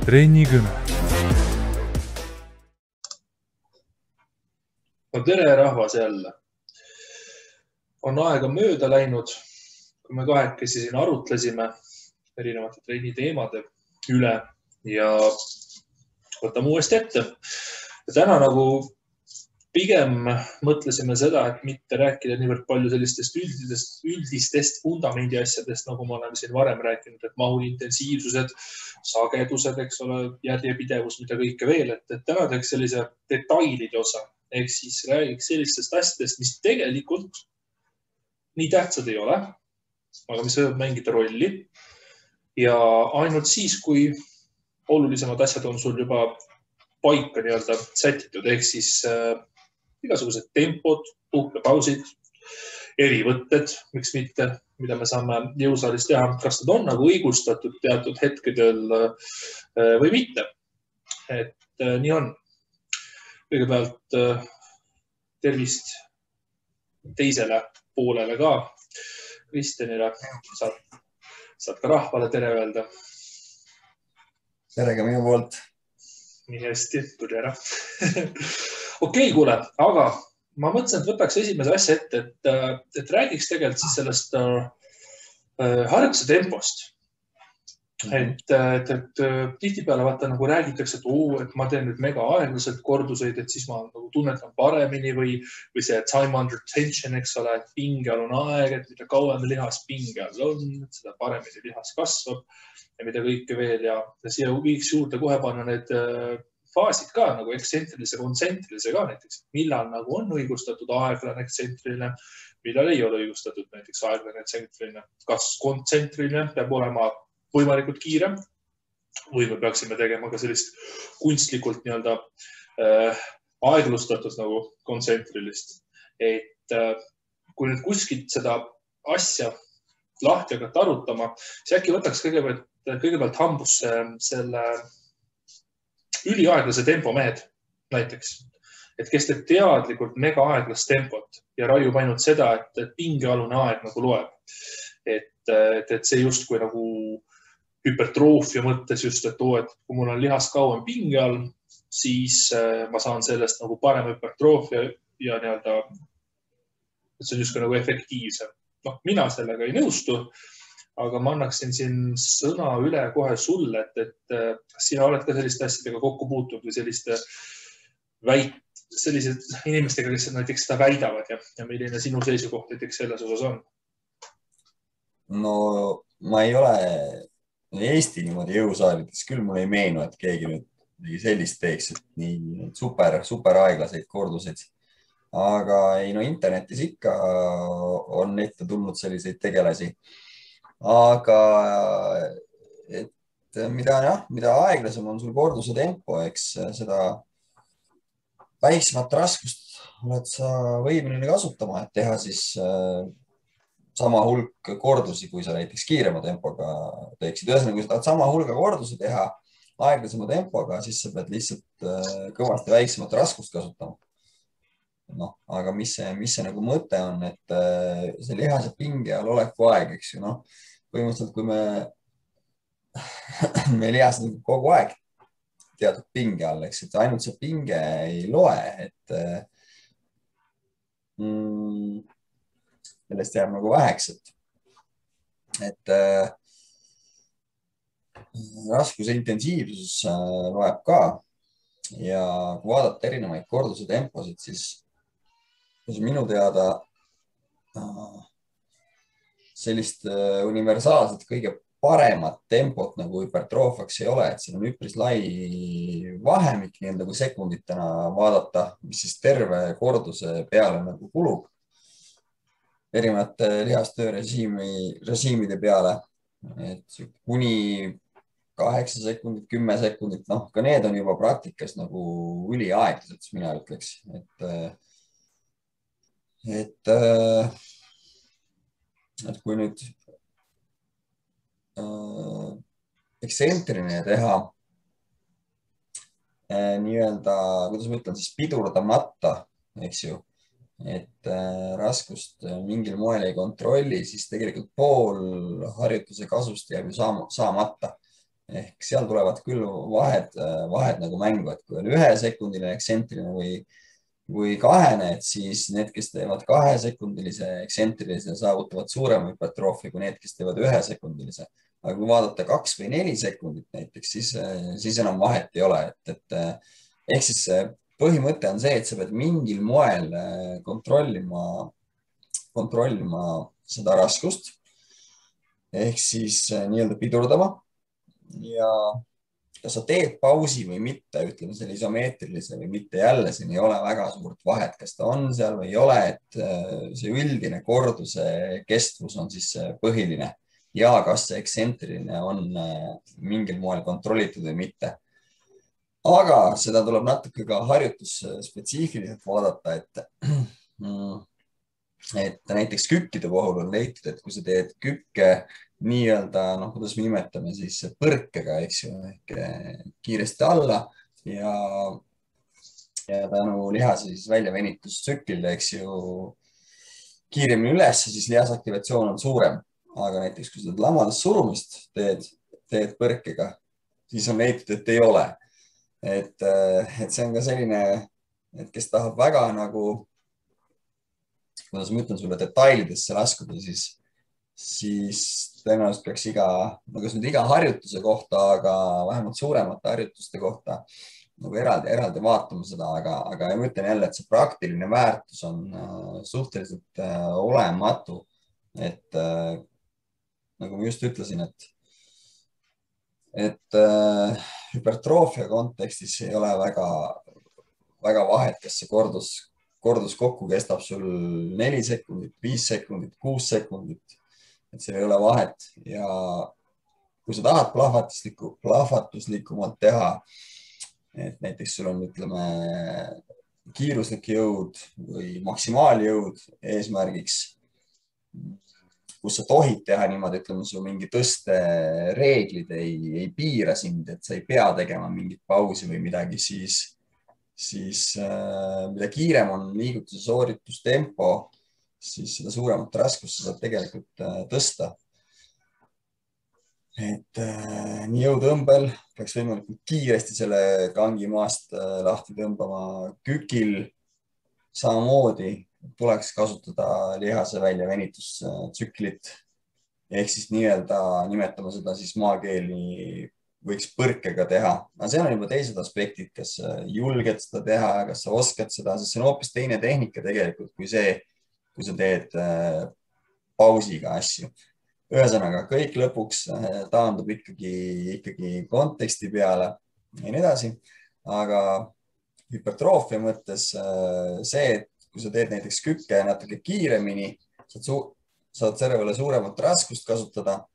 Treenikõne. No tere rahvas jälle. On aega mööda läinud, kui me kahekesi siin arutlesime erinevate treeni teemade üle ja võtame uuesti ette. Ja täna nagu pigem mõtlesime seda, et mitte rääkida niivõrd palju sellistest üldistest fundamendi asjadest, nagu me oleme siin varem rääkinud, et mahu intensiivsused, sagedused, eks ole, järjepidevus, mida kõike veel, et täna teeks sellise detailide osa. Ehk siis räägiks sellistest asjadest, mis tegelikult nii tähtsad ei ole, aga mis võivad mängida rolli. Ja ainult siis, kui olulisemad asjad on sul juba paika nii-öelda sätitud, ehk siis igasugused tempod, puhkepausid, erivõtted, miks mitte, mida me saame jõusaalis teha, kas nad on nagu õigustatud teatud hetkedel või mitte. Et nii on. Kõigepealt tervist teisele poolele ka, Kristjanile. Saad ka rahvale tere öelda. Tere ka minu poolt. Nii hästi, tuli ära. Okei, kuule, aga ma mõtlesin, et võtaks esimese asja ette, et räägiks tegelikult siis sellest harjutuse tempost. Et tihtipeale vaata nagu räägitakse, et ma teen nüüd mega aeglaselt korduseid, et siis ma nagu tunnetan paremini või see time under tension, eks ole, et pingealune aeg, et mida kauem lihas pinge all on, seda paremini lihas kasvab ja mida kõike veel ja siia viiks juurde kohe panna need faasid ka nagu ekstsentrilise, kontsentrilise ka näiteks. Millal nagu on õigustatud aeglane ekstsentriline, millal ei ole õigustatud näiteks aeglane ekstsentriline. Kas kontsentriline peab olema võimalikult kiirem või me peaksime tegema ka sellist kunstlikult nii-öelda aeglustatud nagu kontsentrilist. Et kui nüüd kuskilt seda asja lahti hakata arutama, siis äkki võtaks kõigepealt hambusse selle üliaeglase tempo mehed näiteks, et kes teeb teadlikult mega aeglast tempot ja raiub ainult seda, et pingealune aeg nagu loeb. Et see justkui nagu hüpertroofia mõttes just, et kui mul on lihas kauem pinge all, siis ma saan sellest nagu parem hüpertroofia ja nii-öelda, et see on justkui nagu efektiivsem. No, mina sellega ei nõustu, aga ma annaksin siin sõna üle kohe sulle, et sina oled ka selliste asjadega kokku puutunud või selliste inimestega, kes näiteks seda väidavad ja milline sinu seisukoht näiteks selles osas on? No ma ei ole Eesti niimoodi jõusaalides, küll mulle ei meenu, et keegi nüüd sellist teeks, et nii super aeglaseid korduseid. Aga ei, no internetis ikka on ette tulnud selliseid tegelasi. Aga et mida aeglasem on sul korduse tempo, eks seda väiksemat raskust oled sa võimeline kasutama, et teha siis sama hulk kordusi, kui sa näiteks kiirema tempoga teeksid. Ühesõnaga, kui sa tahad sama hulga kordusi teha aeglasema tempoga, siis sa pead lihtsalt kõvasti väiksemat raskust kasutama. No, aga mis see nagu mõte on, et see lihase pinge all oleku aeg, eks ju, noh, põhimõtteliselt, kui me lihas kogu aeg teatud pinge all, eks, et ainult see pinge ei loe, et sellest jääb nagu väheks, et raskuse intensiivsus loeb ka ja kui vaadata erinevaid korduse temposid, siis minu teada sellist universaalset kõige paremat tempot nagu hüpertroofiaks ei ole, et siin on üpris lai vahemik nii-öelda kui sekunditena vaadata, mis siis terve korduse peale nagu kulub erinevate lihastöörežiimide peale, et kuni 8 sekundit, 10 sekundit, noh, ka need on juba praktikas nagu üliaeglased, mina ütleks, et kui nüüd ekstsentriline teha nii-öelda, kuidas ma ütlen, siis pidurdamata, eks ju, et raskust mingil moel ei kontrolli, siis tegelikult pool harjutuse kasust jääb ju saamata. ehk seal tulevad küll vahed nagu mängu, et kui on 1-sekundiline ekstsentriline või kahene, et siis need, kes teevad 2-sekundilise ekstsentrilise, saavutavad suurema hüpertroofia kui need, kes teevad 1-sekundilise. aga kui vaadata 2 või 4 sekundit näiteks, siis enam vahet ei ole, et ehk siis põhimõte on see, et sa pead mingil moel kontrollima seda raskust ehk siis nii-öelda pidurdama ja kas sa teed pausi või mitte, ütleme selle isomeetrilise või mitte, jälle siin ei ole väga suurt vahet, kas ta on seal või ei ole, et see üldine korduse kestvus on siis põhiline ja kas see ekstsentriline on mingil moel kontrollitud või mitte. aga seda tuleb natuke ka harjutusspetsiifiliselt vaadata, et näiteks kükkide puhul on leitud, et kui sa teed kükke nii-öelda, noh, kuidas me nimetame siis põrkega, eks ju, ehk kiiresti alla ja tänu lihase siis väljavenitustsüklile, eks ju, kiiremini üles, siis lihasaktivatsioon on suurem. aga näiteks, kui sa lamadest surumist teed põrkega, siis on leitud, et ei ole. Et see on ka selline, et kes tahab väga nagu, kuidas ma ütlen sulle, detailidesse laskuda, siis tõenäoliselt peaks iga harjutuse kohta, aga vähemalt suuremate harjutuste kohta nagu eraldi vaatama seda, aga ma ütlen jälle, et see praktiline väärtus on suhteliselt olematu. Et nagu ma just ütlesin, et hüpertroofia kontekstis ei ole väga vahet, kas see kordus kokku kestab sul 4 sekundit, 5 sekundit, 6 sekundit. Et seal ei ole vahet ja kui sa tahad plahvatuslikumalt teha, et näiteks sul on, ütleme, kiiruslik jõud või maksimaaljõud eesmärgiks, kus sa tohid teha niimoodi, ütleme, su mingi tõstereeglid ei piira sind, et sa ei pea tegema mingit pausi või midagi, siis mida kiirem on liigutuse sooritustempo, siis seda suuremat raskust sa saad tegelikult tõsta. Et nii jõutõmbel peaks võimalikult kiiresti selle kangi maast lahti tõmbama. Kükil samamoodi tuleks kasutada lihase väljavenitustsüklit ehk siis nii-öelda nimetame seda siis maakeeli võiks põrkega teha. Aga seal on juba teised aspektid, kas julged seda teha, kas sa oskad seda, sest see on hoopis teine tehnika tegelikult kui see, kui sa teed pausiga asju. Ühesõnaga, kõik lõpuks taandub ikkagi konteksti peale ja nii edasi. Aga hüpertroofia mõttes see, et kui sa teed näiteks kükke natuke kiiremini, saad servele suuremat raskust kasutada,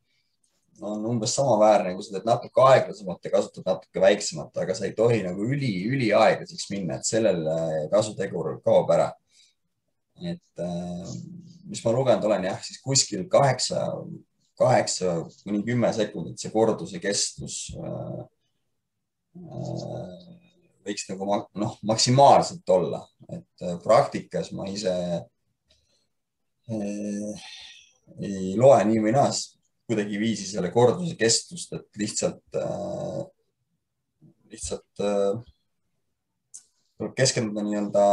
on umbes samaväärne, kui sa teed natuke aeglasemalt ja kasutad natuke väiksemat, aga sa ei tohi nagu üliaeglaseks minna, et sellel kasutegur kaob ära. Et mis ma lugenud olen, jah, siis kuskil 8–10 sekundit see korduse kestus võiks nagu maksimaalselt olla, et praktikas ma ise ei loe nii või naas kuidagi viisi selle korduse kestust, et lihtsalt tuleb keskenduda nii-öelda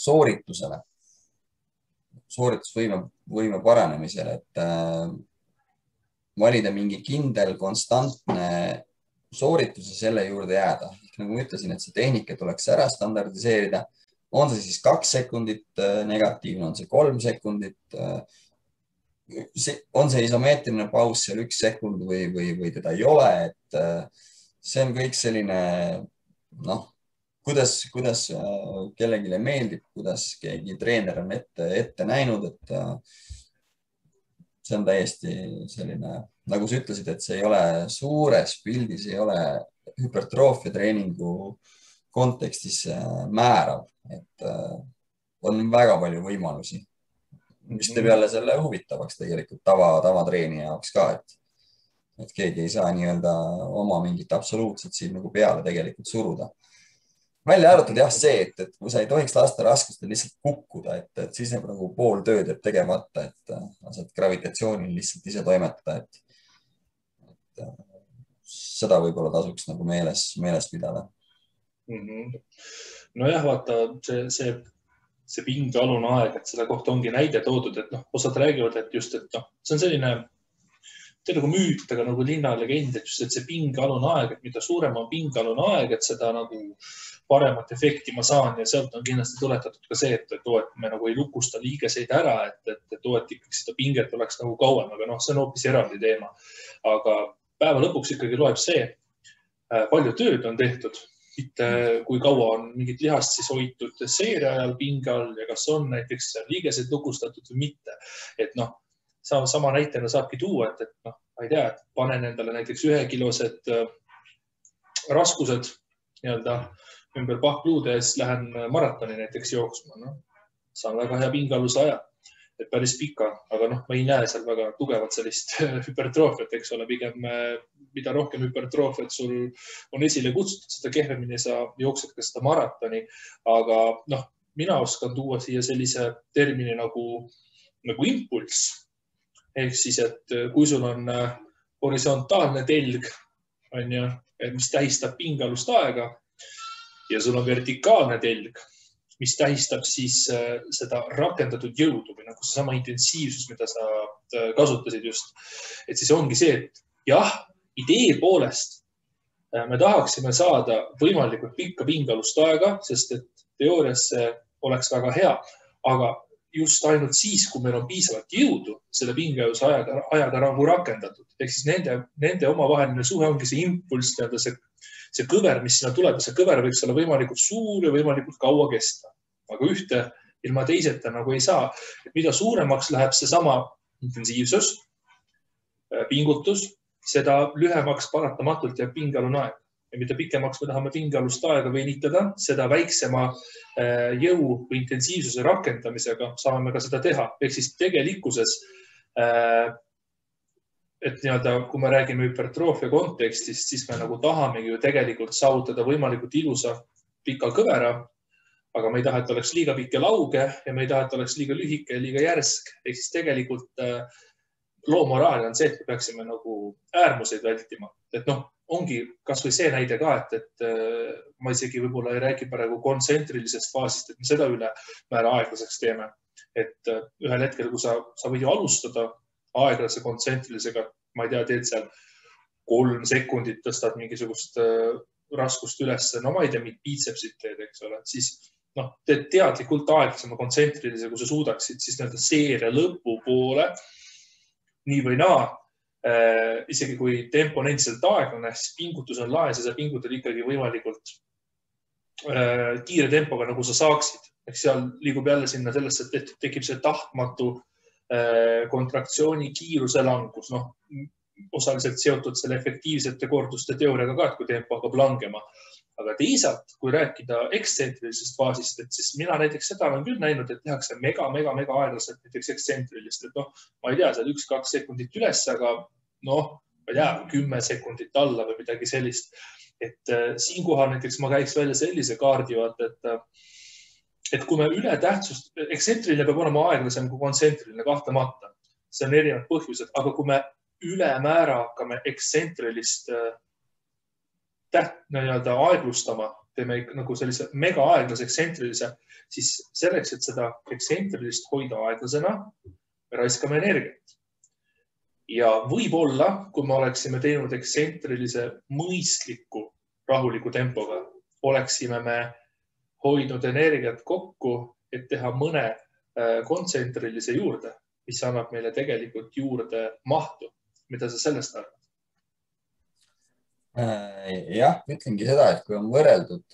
sooritusvõime paranemisele, et valida mingi kindel, konstantne sooritus ja selle juurde jääda. Nagu ma ütlesin, et see tehnika tuleks ära standardiseerida. On see siis 2 sekundit negatiivne, on see 3 sekundit, on see isomeetriline paus seal 1 sekund või teda ei ole, et see on kõik selline, kuidas kellelegi meeldib, kuidas keegi treener on ette näinud, et see on täiesti selline, nagu sa ütlesid, et see ei ole suures pildis, ei ole hüpertroofia treeningu kontekstis määrav, et on väga palju võimalusi, mis teeb jälle selle huvitavaks tegelikult tavatreenija jaoks ka, et keegi ei saa nii-öelda oma mingit absoluutset siin nagu peale tegelikult suruda. Välja arvatud jah see, et kui sa ei tohiks lasta raskustel lihtsalt kukkuda, et siis nagu pool tööd jääb tegemata, et saad gravitatsioonil lihtsalt ise toimetada, seda võib-olla tasuks nagu meeles pidada. Nojah, vaata see pingealune aeg, et selle kohta ongi näide toodud, et osad räägivad, et just, et see on selline nagu müüt, aga nagu linnalegend, et just, et see pingealune aeg, et mida suurem on pingealune aeg, et seda nagu paremat efekti ma saan ja sealt on kindlasti tuletatud ka see, et me nagu ei lukusta liigeseid ära, et ikkagi seda pinget oleks nagu kauem, aga see on hoopis eraldi teema. Aga päeva lõpuks ikkagi loeb see, palju tööd on tehtud, mitte kui kaua on mingit lihast siis hoitud seeria ajal pinge all ja kas on näiteks liigeseid lukustatud või mitte. Et sama näitena saabki tuua, et ma ei tea, et panen endale näiteks 1-kilosed raskused nii-öelda ümber pahkluude ja siis lähen maratoni näiteks jooksma. Saan väga hea pingealuse aja, et päris pika, aga ma ei näe seal väga tugevat sellist hüpertroofiat, eks ole, pigem mida rohkem hüpertroofiat sul on esile kutsutud, seda kehvemini sa jooksed ka seda maratoni. Aga mina oskan tuua siia sellise termini nagu impulss. Ehk siis, et kui sul on horisontaalne telg, mis tähistab pingealust aega ja sul on vertikaalne telg, mis tähistab siis seda rakendatud jõudu või nagu seesama intensiivsus, mida sa kasutasid just. Et siis ongi see, et jah, idee poolest me tahaksime saada võimalikult pikka pingealust aega, sest et teoorias see oleks väga hea, aga just ainult siis, kui meil on piisavalt jõudu selle pingealuse ajaga nagu rakendatud. Ehk siis nende omavaheline suhe ongi see impulss, see kõver, mis sinna tuleb, see kõver võiks olla võimalikult suur ja võimalikult kaua kesta. Aga ühte ilma teiseta nagu ei saa. Et mida suuremaks läheb seesama intensiivsus, pingutus, seda lühemaks paratamatult jääb pingealune aeg. Ja mida pikemaks me tahame pingealust aega venitada, seda väiksema jõu või intensiivsuse rakendamisega saame ka seda teha. Ehk siis tegelikkuses, et kui me räägime hüpertroofia kontekstist, siis me nagu tahamegi ju tegelikult saavutada võimalikult ilusa pika kõvera, aga me ei taha, et oleks liiga pikk ja lauge ja me ei taha, et oleks liiga lühike ja liiga järsk. Ehk siis tegelikult loo moraal on see, et me peaksime nagu äärmuseid vältima. Et ongi kas või see näide ka, et ma isegi võib-olla ei räägi praegu kontsentrilisest faasist, et me seda üle määra aeglaseks teeme. Et ühel hetkel, kui sa võid ju alustada aeglase kontsentrilisega, ma ei tea, teed seal 3 sekundit, tõstad mingisugust raskust üles, ma ei tea, biitsepsit teed, eks ole, siis teed teadlikult aeglasema kontsentrilise, kui sa suudaksid, siis seeria lõpu poole, nii või naa, isegi kui tempo on endiselt aeglane, siis pingutus on laes ja sa pingutad ikkagi võimalikult kiire tempoga, nagu sa saaksid. Ehk seal liigub jälle sinna sellesse, et tekib see tahtmatu kontraktsiooni kiiruse langus, osaliselt seotud selle efektiivsete korduste teooriaga ka, et kui tempo hakkab langema. Aga teisalt, kui rääkida ekstsentrilisest faasist, et siis mina näiteks seda olen küll näinud, et tehakse mega aeglaselt näiteks ekstsentrilist, et ma ei tea, seal 1-2 sekundit üles, aga ma ei tea, 10 sekundit alla või midagi sellist. Et siinkohal näiteks ma käiks välja sellise kaardi, et kui me üle tähtsust, ekstsentriline peab olema aeglasem kui kontsentriline kahtlemata. See on erinevad põhjused, aga kui me ülemäära hakkame ekstsentrilist aeglustama, teeme nagu sellise mega aeglase ekstsentrilisuse, siis selleks, et seda ekstsentrilist hoida aeglasena, me raiskame energiat. Ja võib-olla, kui me oleksime teinud ekstsentrilise mõistliku, rahuliku tempoga, oleksime me hoidnud energiat kokku, et teha mõne kontsentrilise juurde, mis annab meile tegelikult juurde mahtu. Mida sa sellest arvad? Jah, ütlengi seda, et kui on võrreldud,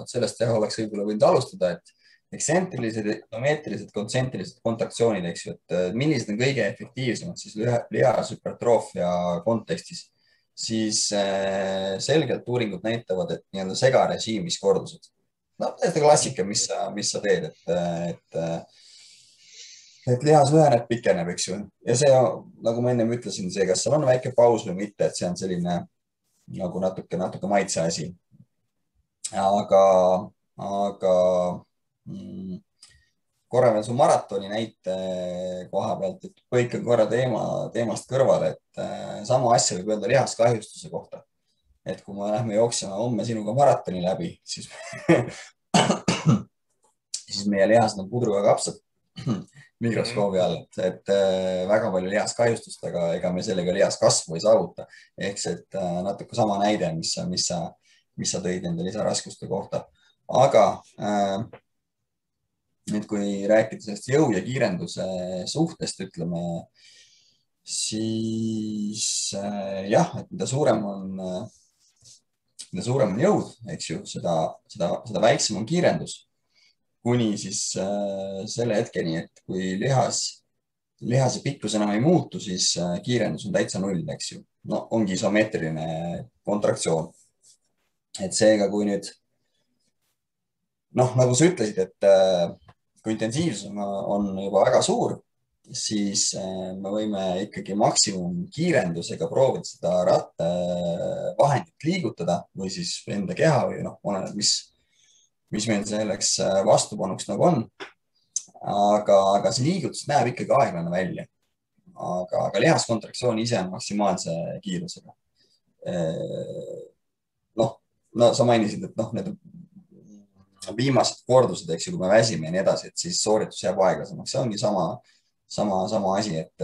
sellest oleks võib-olla võinud alustada, et ekstsentrilised, isomeetrilised, kontsentrilised kontraktsioonid, eks ju, et millised on kõige efektiivsemad siis lihashüpertroofia kontekstis, siis selgelt uuringud näitavad, et nii-öelda segarežiimis kordused. Täiesti klassika, mis sa teed, et lihas lüheneb, pikeneb, eks ju. Ja see, nagu ma enne ütlesin, see, kas seal on väike paus või mitte, et see on selline nagu natuke maitse asi. Aga korra veel su maratoni näite koha pealt, et põikan korra teemast kõrvale, et sama asja võib öelda lihaskahjustuse kohta. Et kui me lähme jooksema homme sinuga maratoni läbi, siis, siis meie lihased on pudruga kapsad mikroskoobi all, et väga palju lihaskahjustust, aga ega me sellega lihaskasvu ei saavuta. Ehk see, et natuke sama näide, mis sa tõid nende lisaraskuste kohta. Aga nüüd, kui rääkida sellest jõu ja kiirenduse suhtest, ütleme, siis jah, et mida suurem on jõud, eks ju, seda väiksem on kiirendus. Kuni siis selle hetkeni, et kui lihase pikkus enam ei muutu, siis kiirendus on täitsa null, eks ju. No ongi isomeetriline kontraktsioon. Et seega, kui nüüd, nagu sa ütlesid, et kui intensiivsus on juba väga suur, siis me võime ikkagi maksimumkiirendusega proovida seda rattavahendit liigutada või siis enda keha või oleneb, mis meil selleks vastupanuks nagu on. Aga see liigutus näeb ikkagi aeglane välja. Aga lihaskontraktsioon ise on maksimaalse kiirusega. No sa mainisid, et need viimased kordused, eks ju, kui me väsime ja nii edasi, et siis sooritus jääb aeglasemaks. See ongi sama asi, et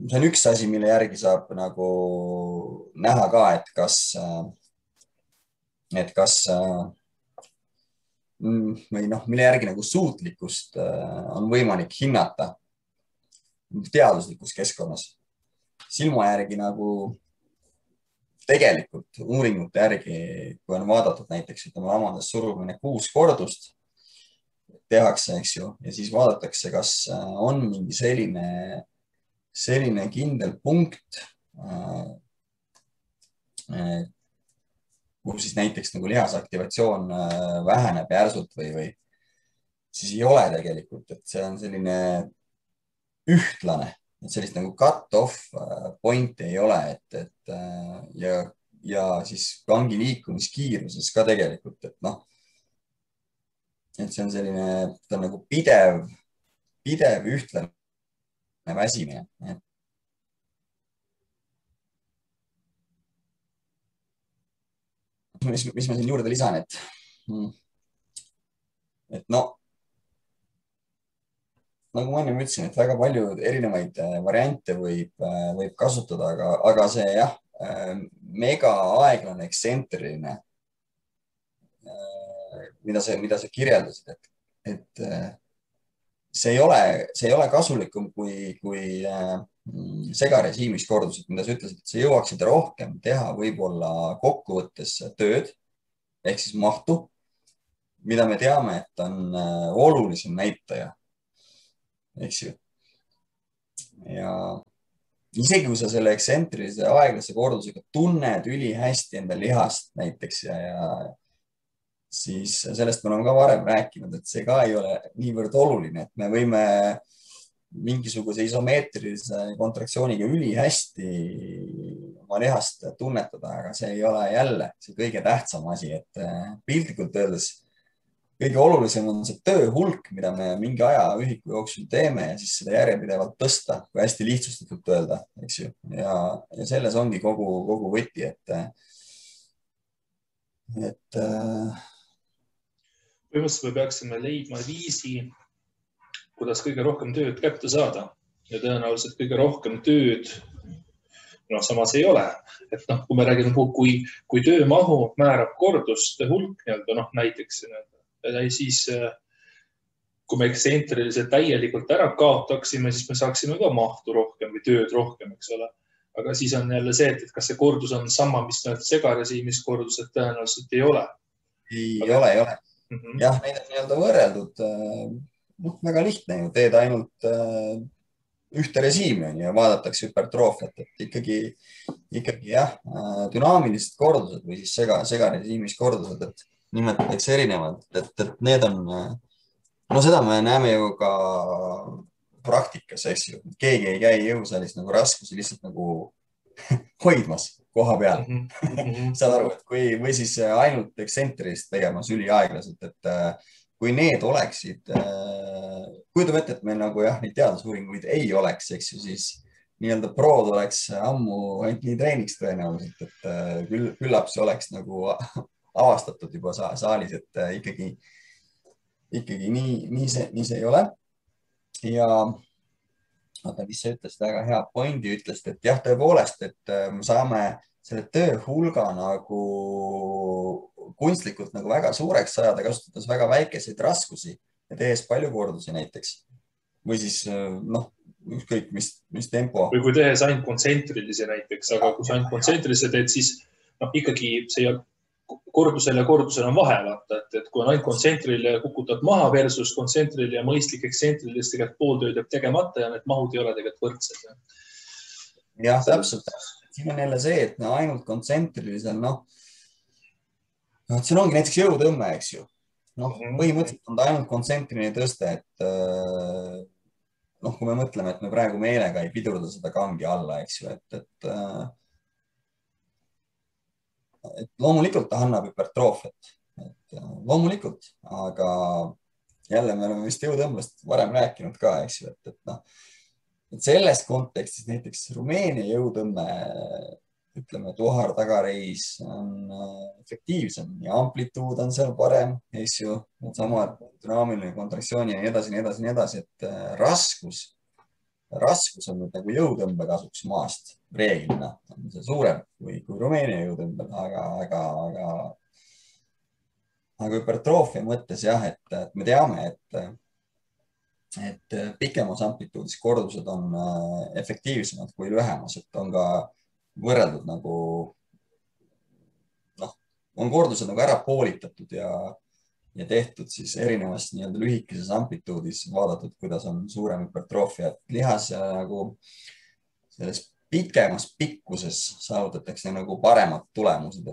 see on üks asi, mille järgi saab nagu näha ka, et kas või mille järgi nagu suutlikkust on võimalik hinnata teaduslikus keskkonnas. Silma järgi nagu tegelikult uuringute järgi, kui on vaadatud näiteks, ütleme, lamades surumine 6 kordust tehakse, eks ju, ja siis vaadatakse, kas on mingi selline kindel punkt, kus siis näiteks nagu lihasaktivatsioon väheneb järsult või siis ei ole tegelikult, et see on selline ühtlane. Et sellist nagu cut-off pointi ei ole, ja siis kangi liikumiskiiruses ka tegelikult, et see on selline, ta on nagu pidev ühtlane väsimine. Mis ma siin juurde lisan, et nagu ma enne ütlesin, et väga palju erinevaid variante võib kasutada, aga see jah, mega aeglane ekstsentriline, mida sa kirjeldasid, et see ei ole kasulikum kui segarežiimis kordused, mida sa ütlesid, et sa jõuaksid rohkem teha võib-olla kokkuvõttes tööd ehk siis mahtu, mida me teame, et on olulisem näitaja. Eks ju. Ja isegi kui sa selle ekstsentrilise aeglase kordusega tunned ülihästi enda lihast näiteks ja siis sellest me oleme ka varem rääkinud, et see ka ei ole niivõrd oluline, et me võime mingisuguse isomeetrilise kontraktsiooniga ülihästi oma lihast tunnetada, aga see ei ole jälle see kõige tähtsam asi, et piltlikult öeldes kõige olulisem on see töö hulk, mida me mingi ajaühiku jooksul teeme ja siis seda järjepidevalt tõsta, kui hästi lihtsustatult öelda, eks ju. Ja selles ongi kogu võti, et põhimõtteliselt me peaksime leidma viisi, kuidas kõige rohkem tööd kätte saada ja tõenäoliselt kõige rohkem tööd samas ei ole. Et kui me räägime, kui töömahu määrab korduste hulk, näiteks siis kui me ekstsentriliselt täielikult ära kaotaksime, siis me saaksime ka mahtu rohkem või tööd rohkem, eks ole. Aga siis on jälle see, et kas see kordus on sama, mis segarežiimis kordused tõenäoliselt ei ole. Ei ole. Jah, neid on nii-öelda võrreldud. Väga lihtne ju, teed ainult ühte režiimi ja vaadatakse hüpertroofiat, et ikkagi jah, dünaamilised kordused või siis segarežiimis kordused, et nimetatakse erinevad, et need on, seda me näeme ju ka praktikas, eks ju. Keegi ei käi jõusaalis nagu raskusi lihtsalt nagu hoidmas, koha peal. -hmm. Saad aru, et või siis ainult eksentrist tegemas üliaeglaselt, et kui need oleksid, kujutame ette, et meil nagu jah, neid teadusuuringuid ei oleks, eks ju, siis nii-öelda prod oleks ammu ainult nii treeniks tõenäoliselt, et küllap see oleks nagu avastatud juba saalis, et ikkagi nii see ei ole. Ja oota, mis sa ütlesid, väga hea pointi ütlesid, et jah, tõepoolest, et me saame selle töö hulga nagu kunstlikult nagu väga suureks sajada, kasutades väga väikeseid raskusi ja tehes palju kordusi näiteks. Või siis ükskõik, mis tempo. Või kui tehes ainult kontsentrilisi näiteks, aga kui sa ainult kontsentrilisi teed, siis ikkagi see kordusel ja kordusel on vahe, vaata, et kui on ainult kontsentrile kukutad maha versus kontsentrile ja mõistlik eksentril, siis tegelikult pooltööd jääb tegemata ja need mahud ei ole tegelikult võrdsed. Jah, täpselt. Siin on jälle see, et ainult kontsentrilisel, see ongi näiteks jõutõmme, eks ju. Põhimõtteliselt on ta ainult kontsentriline tõste, et kui me mõtleme, et me praegu meelega ei pidurda seda kangi alla, eks ju, et loomulikult ta annab hüpertroofiat, loomulikult, aga jälle me oleme vist jõutõmbest varem rääkinud ka, eks ju, et selles kontekstis näiteks Rumeenia jõutõmme, ütleme, tuhar tagareis on efektiivsem ja amplituud on seal parem, eks ju, samad dünaamiline kontraktsiooni ja nii edasi, et raskus on nüüd nagu jõutõmbe kasuks maast reeglina, on see suurem kui Rumeenia jõutõmbel, aga hüpertroofia mõttes jah, et me teame, et pikemas amplituudis kordused on efektiivsemad kui lühemas, et on ka võrreldud nagu, on kordused nagu ära poolitatud ja tehtud siis erinevas nii-öelda lühikeses amplituudis vaadatud, kuidas on suurem hüpertroofia, et lihas nagu selles pikemas pikkuses saavutatakse nagu paremad tulemused,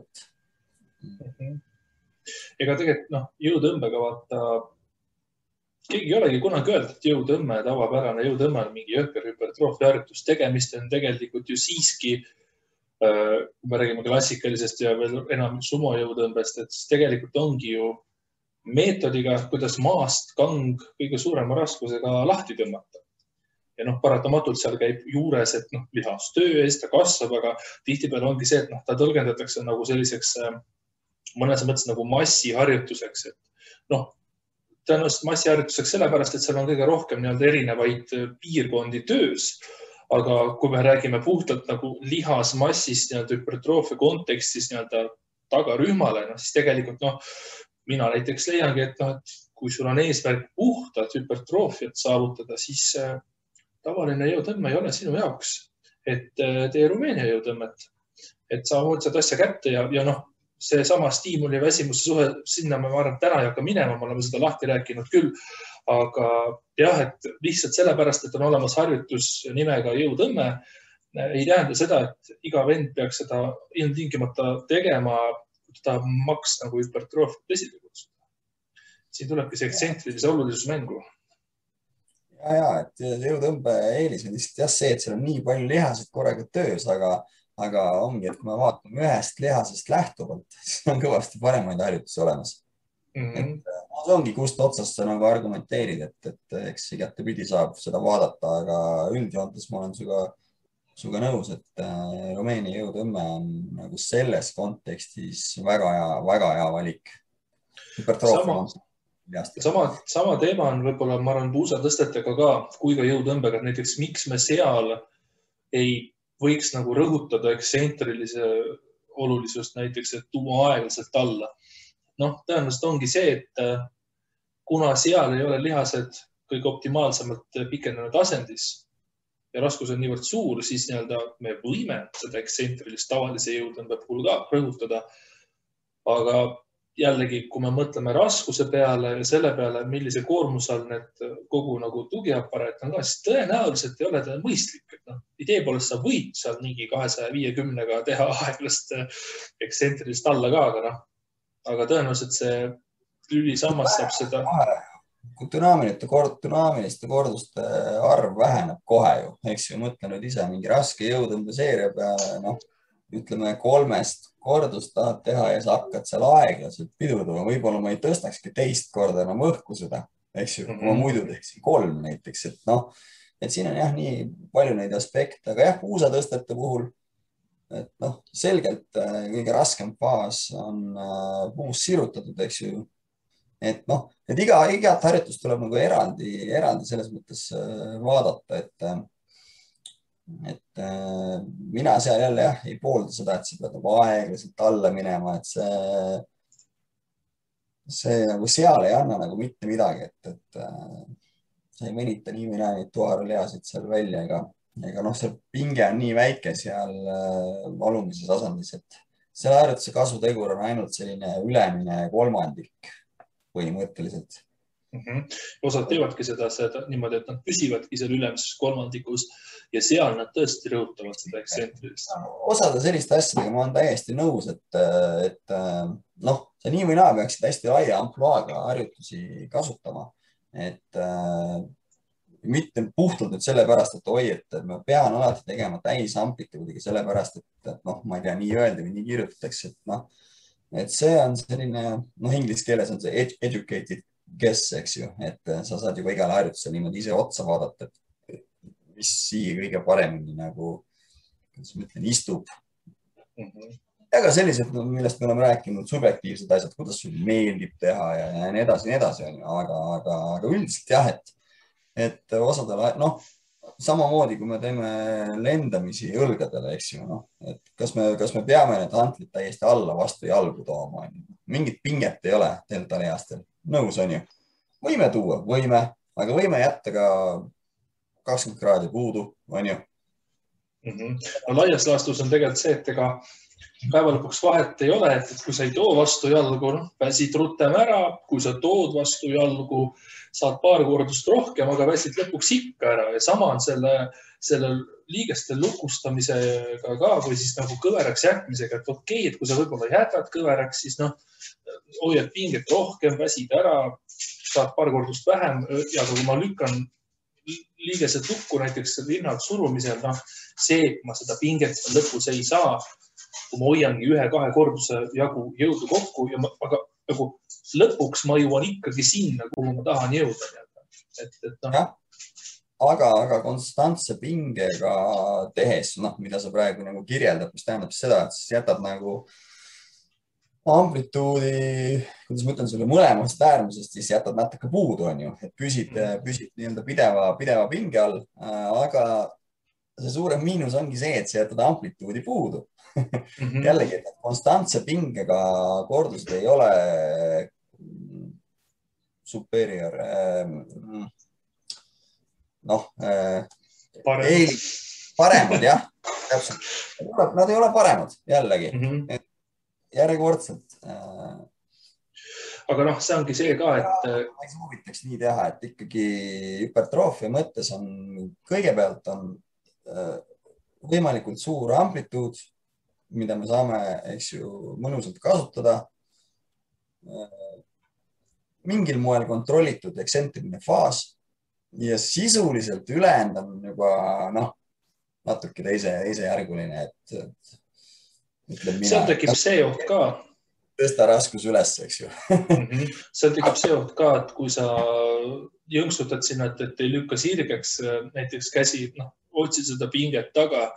Ega tegelikult jõutõmbega vaata, keegi ei olegi kunagi öeldud, et jõutõmme, tavapärane jõutõmme on mingi hüpertroofia harjutus. Tegemist on tegelikult ju siiski, kui me räägime klassikalisest ja veel enam sumo jõutõmbest, et tegelikult ongi ju meetodiga, kuidas maast kang kõige suurema raskusega lahti tõmmata. Ja paratamatult seal käib juures, et lihastöö eest ta kasvab, aga tihtipeale ongi see, et ta tõlgendatakse nagu selliseks mõnes mõttes nagu massiharjutuseks, et tõenäoliselt massiharjutuseks sellepärast, et seal on kõige rohkem erinevaid piirkondi töös. Aga kui me räägime puhtalt nagu lihasmassist hüpertroofia kontekstis tagarühmale, siis tegelikult mina näiteks leiangi, et kui sul on eesmärk puhtalt hüpertroofiat saavutada, siis tavaline jõutõmme ei ole sinu jaoks, et tee Rumeenia jõutõmmet, et sa hooldsad asja kätte ja see sama stiimuli väsimuse suhe, sinna ma arvan, täna ei hakka minema, me oleme seda lahti rääkinud küll, aga jah, et lihtsalt sellepärast, et on olemas harjutus nimega jõutõmme, ei tähenda seda, et iga vend peaks seda ilmtingimata tegema, kui ta maks nagu hüpertroofiat esile kutsuda. Siin tulebki see ekstsentrilise olulisus mängu. Ja, et jõutõmbe eelis on lihtsalt jah see, et seal on nii palju lihasid korraga töös, aga ongi, et kui me vaatame ühest lihasest lähtuvalt, siis on kõvasti paremaid harjutusi olemas. See ongi, kust otsast sa nagu argumenteerid, et eks igatepidi saab seda vaadata, aga üldjoontes ma olen suga nõus, et Rumeenia jõutõmme on nagu selles kontekstis väga hea valik. Sama teema on võib-olla, ma arvan, puusatõstetega ka, kui ka jõutõmbega, näiteks miks me seal ei võiks nagu rõhutada ekstsentrilise olulisust näiteks, et tuua aeglaselt alla. Tõenäoliselt ongi see, et kuna seal ei ole lihased kõige optimaalsemalt pikenenud asendis ja raskus on niivõrd suur, siis me võime seda ekstsentrilist tavalise jõutõmbe puhul ka rõhutada. Aga jällegi, kui me mõtleme raskuse peale ja selle peale, millise koormuse all need kogu nagu tugiaparaat on ka, siis tõenäoliselt ei ole ta mõistlik. Idee poolest sa võid seal mingi 250-ga teha aeglast ekstsentrilist alla ka, aga tõenäoliselt see lülisammas saab seda. Kui dünaamiliste korduste arv väheneb kohe ju, eks ju, mõtle nüüd ise mingi raske jõutõmbe seeria peale, ütleme 3 kordust tahad teha ja sa hakkad seal aeglaselt pidurdama, võib-olla ma ei tõstakski teist korda enam õhku seda, eks ju, kui ma muidu teeksin 3 näiteks, et noh, et siin on jah, nii palju neid aspekte, aga jah, puusatõstete puhul, et noh, selgelt kõige raskem faas on puus sirutatud, eks ju. Et noh, et igat harjutust tuleb nagu eraldi selles mõttes vaadata, et mina seal jälle jah, ei poolda seda, et sa pead nagu aeglaselt alla minema, et see nagu seal ei anna nagu mitte midagi, et sa ei venita nii või naa neid tuharalihasid seal välja, ega noh, see pinge on nii väike seal alumises asendis, et selle harjutuse kasutegur on ainult selline ülemine kolmandik põhimõtteliselt. Osad teevadki seda niimoodi, et nad püsivadki seal ülemises kolmandikus ja seal nad tõesti rõhutavad seda eksentrist. Osade selliste asjadega ma olen täiesti nõus, et noh, sa nii või naa peaksid hästi laia ampluaaga harjutusi kasutama, et mitte puhtalt nüüd sellepärast, et oi, et ma pean alati tegema täisamplituudiga sellepärast, et noh, ma ei tea, nii öelda või nii kirjutatakse, et noh, et see on selline, noh, inglise keeles on see educated guess, eks ju, et sa saad juba igale harjutusele niimoodi ise otsa vaadata, et mis siia kõige paremini nagu, kuidas ma ütlen, istub. Ja ka sellised, millest me oleme rääkinud, subjektiivsed asjad, kuidas sul meeldib teha ja nii edasi, aga üldiselt jah, et osadele, noh, samamoodi, kui me teeme lendamisi õlgadele, eks ju, noh, et kas me peame need hantlid täiesti alla vastu jalgu tooma, mingit pinget ei ole deltalihastel, nõus on ju. Võime tuua, aga võime jätta ka 20 kraadi puudu, on ju. No laias laastus on tegelikult see, et ega päeva lõpuks vahet ei ole, et kui sa ei too vastu jalgu, väsid rutem ära, kui sa tood vastu jalgu, saad paar kordust rohkem, aga väsid lõpuks ikka ära ja sama on selle liigeste lukustamisega ka või siis nagu kõveraks jätmisega, et okei, et kui sa võib-olla jätad kõveraks, siis noh, hoiad pinget rohkem, väsid ära, saad paar kordust vähem ja kui ma lükkan liigesed lukku näiteks rinnalt surumisel, noh, see, kui ma seda pinget lõpus ei saa, kui ma hoiangi 1-2 korduse jagu jõudu kokku, aga nagu lõpuks ma jõuan ikkagi sinna, kuhu ma tahan jõuda. No. Aga konstantse pingega tehes, noh, mida sa praegu nagu kirjeldad, mis tähendab seda, et siis jätad nagu amplituudi, kuidas ma ütlen sulle, mõlemast äärmusest, siis jätad natuke puudu, on ju, et püsid nii-öelda pideva pinge all, aga see suurem miinus ongi see, et sa jätad amplituudi puudu. Jällegi, et konstantse pingega kordused ei ole superior, noh, paremad, jah, täpselt. Nad ei ole paremad, jällegi, järjekordselt. Aga noh, see ongi see ka, et ma ei soovitaks nii teha, et ikkagi hüpertroofia mõttes on, kõigepealt on võimalikult suur amplituud, mida me saame, eks ju, mõnusalt kasutada. Mingil moel kontrollitud eksentriline faas ja sisuliselt ülejäänud on juba, noh, natuke teisejärguline, et seal tekib see oht ka. Tõsta raskus üles, eks ju. Seal tekib see oht ka, et kui sa jõnksutad sinna, et ei lükka sirgeks näiteks käsi, noh, otsid seda pinget taga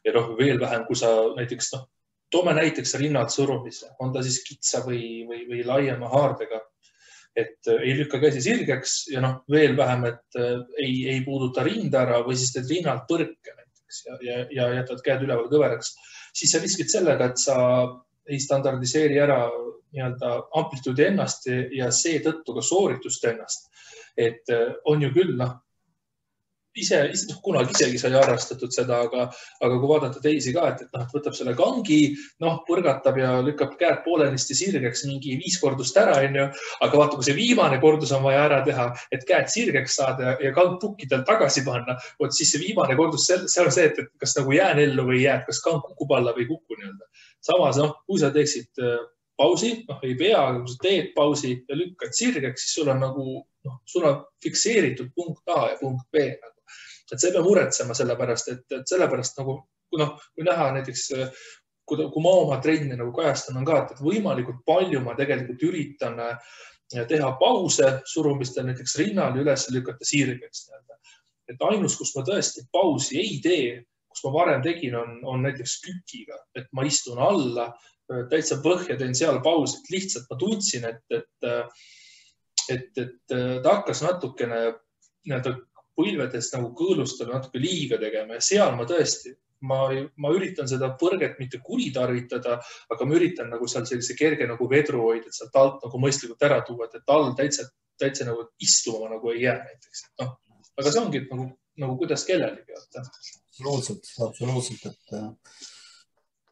ja noh, veel vähem, kui sa näiteks, noh, toome näiteks rinnad surumise, on ta siis kitsa või laiema haardega, et ei lükka käsi sirgeks ja noh, veel vähem, et ei puuduta rinda ära või siis teed rinnalt põrke näiteks ja jätad käed üleval kõveraks, siis sa riskid sellega, et sa ei standardiseeri ära nii-öelda amplituudi ennast ja seetõttu ka sooritust ennast. Et on ju küll, noh, kunagi isegi sai harrastatud seda, aga kui vaadata teisi ka, et noh, võtab selle kangi, noh, põrgatab ja lükkab käed poolenisti sirgeks mingi 5 kordust ära, on ju, aga vaata, kui see viimane kordus on vaja ära teha, et käed sirgeks saada ja kang pukkidel tagasi panna, siis see viimane kordus, see on see, et kas nagu jään ellu või jääd, kas kang kukub alla või ei kuku nii-öelda. Samas, noh, kui sa teeksid pausi, noh, ei pea, aga kui sa teed pausi ja lükkad sirgeks, siis sul on nagu, noh, sul on fikseeritud punkt A ja punkt B nagu. Et see ei pea muretsema sellepärast, et sellepärast nagu, kui näha näiteks kui ma oma trenni nagu kajastan, on ka, et võimalikult palju ma tegelikult üritan teha pause surumistel, näiteks rinnal üles lükata sirgeks. Et ainus, kus ma tõesti pausi ei tee, kus ma varem tegin, on näiteks kükiga, et ma istun alla, täitsa põhja teen seal pausi, et lihtsalt ma tundsin, et ta hakkas natukene põlvedest nagu kõõlustel natuke liiga tegema ja seal ma tõesti, ma üritan seda põrget mitte kuritarvitada, aga ma üritan nagu seal sellise kerge nagu vedru hoida, et sealt alt nagu mõistlikult ära tuua, et all täitsa nagu istuma nagu ei jää näiteks. Aga see ongi nagu kuidas kellelegi. Absoluutselt.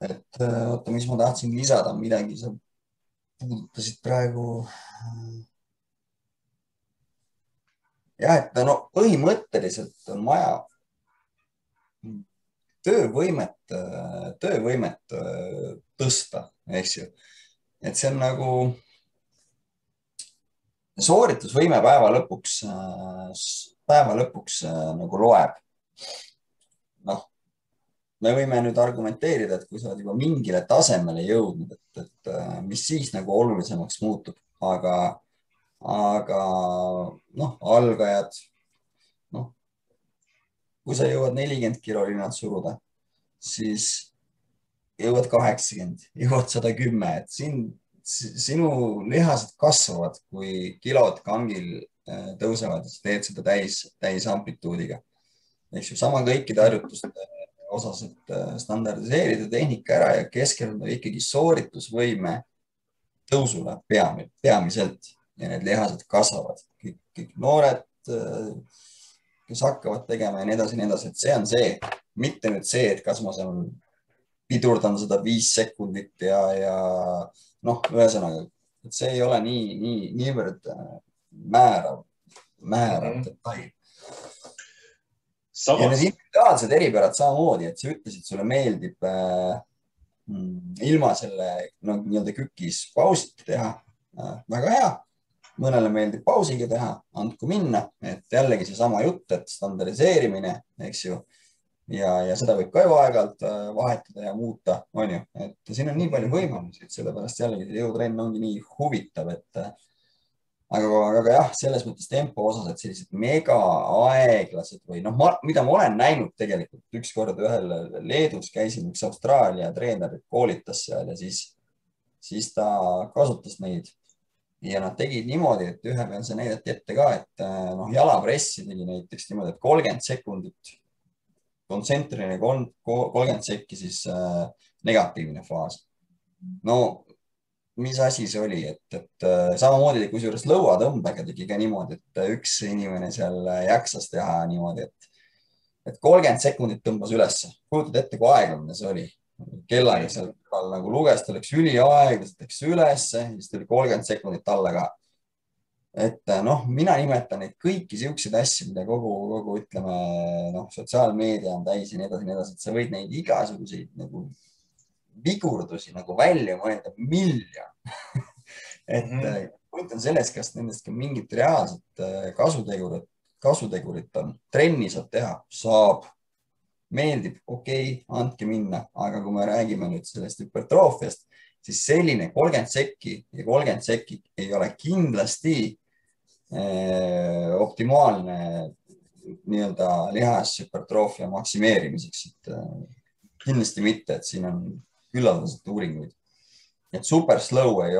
Et oota, mis ma tahtsin lisada, midagi sa puudutasid praegu. Jah, et põhimõtteliselt on vaja töövõimet tõsta, eks ju. Et see on nagu sooritusvõime päeva lõpuks nagu loeb. Me võime nüüd argumenteerida, et kui sa oled juba mingile tasemele jõudnud, et mis siis nagu olulisemaks muutub, aga algajad, kui sa jõuad 40 kilo rinnad suruda, siis jõuad 80, jõuad 110, et sinu lihased kasvavad, kui kilod kangil tõusevad, teed seda täis amplituudiga. Eks ju, sama kõikide harjutuste osas, et standardiseerida tehnika ära ja keskenduda ikkagi sooritusvõime tõusule peamiselt ja need lihased kasvavad. Kõik noored, kes hakkavad tegema ja nii edasi, et see on see, mitte nüüd see, et kas ma seal pidurdan seda 5 sekundit ja ühesõnaga, et see ei ole niivõrd määrav detail. Ja need individuaalsed eripärad samamoodi, et sa ütlesid, sulle meeldib ilma selle nii-öelda kükis pausiti teha. Väga hea. Mõnele meeldib pausiga teha, andku minna, et jällegi see sama jutt, et standardiseerimine, eks ju, ja seda võib ka ju aeg-ajalt vahetada ja muuta, on ju, et siin on nii palju võimalusi, et sellepärast jällegi see jõutrenn ongi nii huvitav, et aga jah, selles mõttes tempo osas, et sellised mega aeglased või mida ma olen näinud tegelikult ükskord ühel Leedus käisin, üks Austraalia treener koolitas seal ja siis ta kasutas neid ja nad tegid niimoodi, et ühe peal see näidati ette ka, et jalapressi tegi näiteks niimoodi, et 30 sekundit kontsentriline 30 sekki siis negatiivne faas. Mis asi see oli, et samamoodi kusjuures lõuatõmbega tegi ka niimoodi, et üks inimene seal jaksas teha niimoodi, et 30 sekundit tõmbas ülesse. Kujutad ette, kui aeglane see oli. Kellaga seal nagu luges, ta läks üliaeglaselt, läks ülesse, siis tuli 30 sekundit alla ka. Et mina nimetan neid kõiki siukseid asju, mida kogu ütleme, sotsiaalmeedia on täis ja nii edasi, et sa võid neid igasuguseid nagu vigurdusi nagu välja mõelda miljon. Et point on selles, kas nendest ka mingit reaalset kasutegurit on. Trenni saab teha, saab, meeldib, okei, andke minna. Aga kui me räägime nüüd sellest hüpertroofiast, siis selline 30 sekki ja 30 sekki ei ole kindlasti optimaalne nii-öelda lihashüpertroofia maksimeerimiseks. Kindlasti mitte, et siin on küllaldaselt uuringuid. Et super slow ei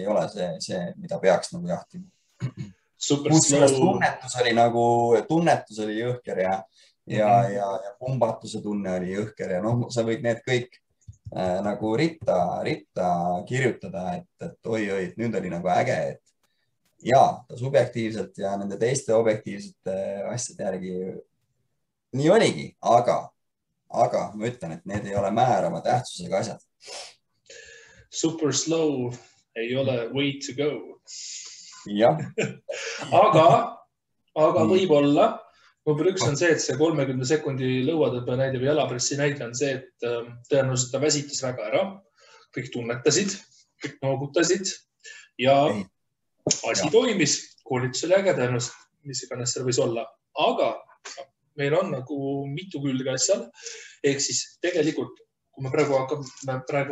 ole see, mida peaks nagu jahtima. Tunnetus oli jõhker ja pumbatuse tunne oli jõhker ja sa võid need kõik nagu ritta kirjutada, et oi, nüüd oli nagu äge, et ta subjektiivselt ja nende teiste objektiivsete asjade järgi nii oligi, aga ma ütlen, et need ei ole määrava tähtsusega asjad. Super slow ei ole way to go. Jah. aga võib-olla number 1 on see, et see 30 sekundi lõuatõmbe näide või jalapressi näide on see, et tõenäoliselt ta väsitas väga ära. Kõik tunnetasid, kõik noogutasid ja asi toimis. Koolitus oli äge tõenäoliselt, mis iganes seal võis olla. Aga meil on nagu mitu külge asjal. Ehk siis tegelikult kui me praegu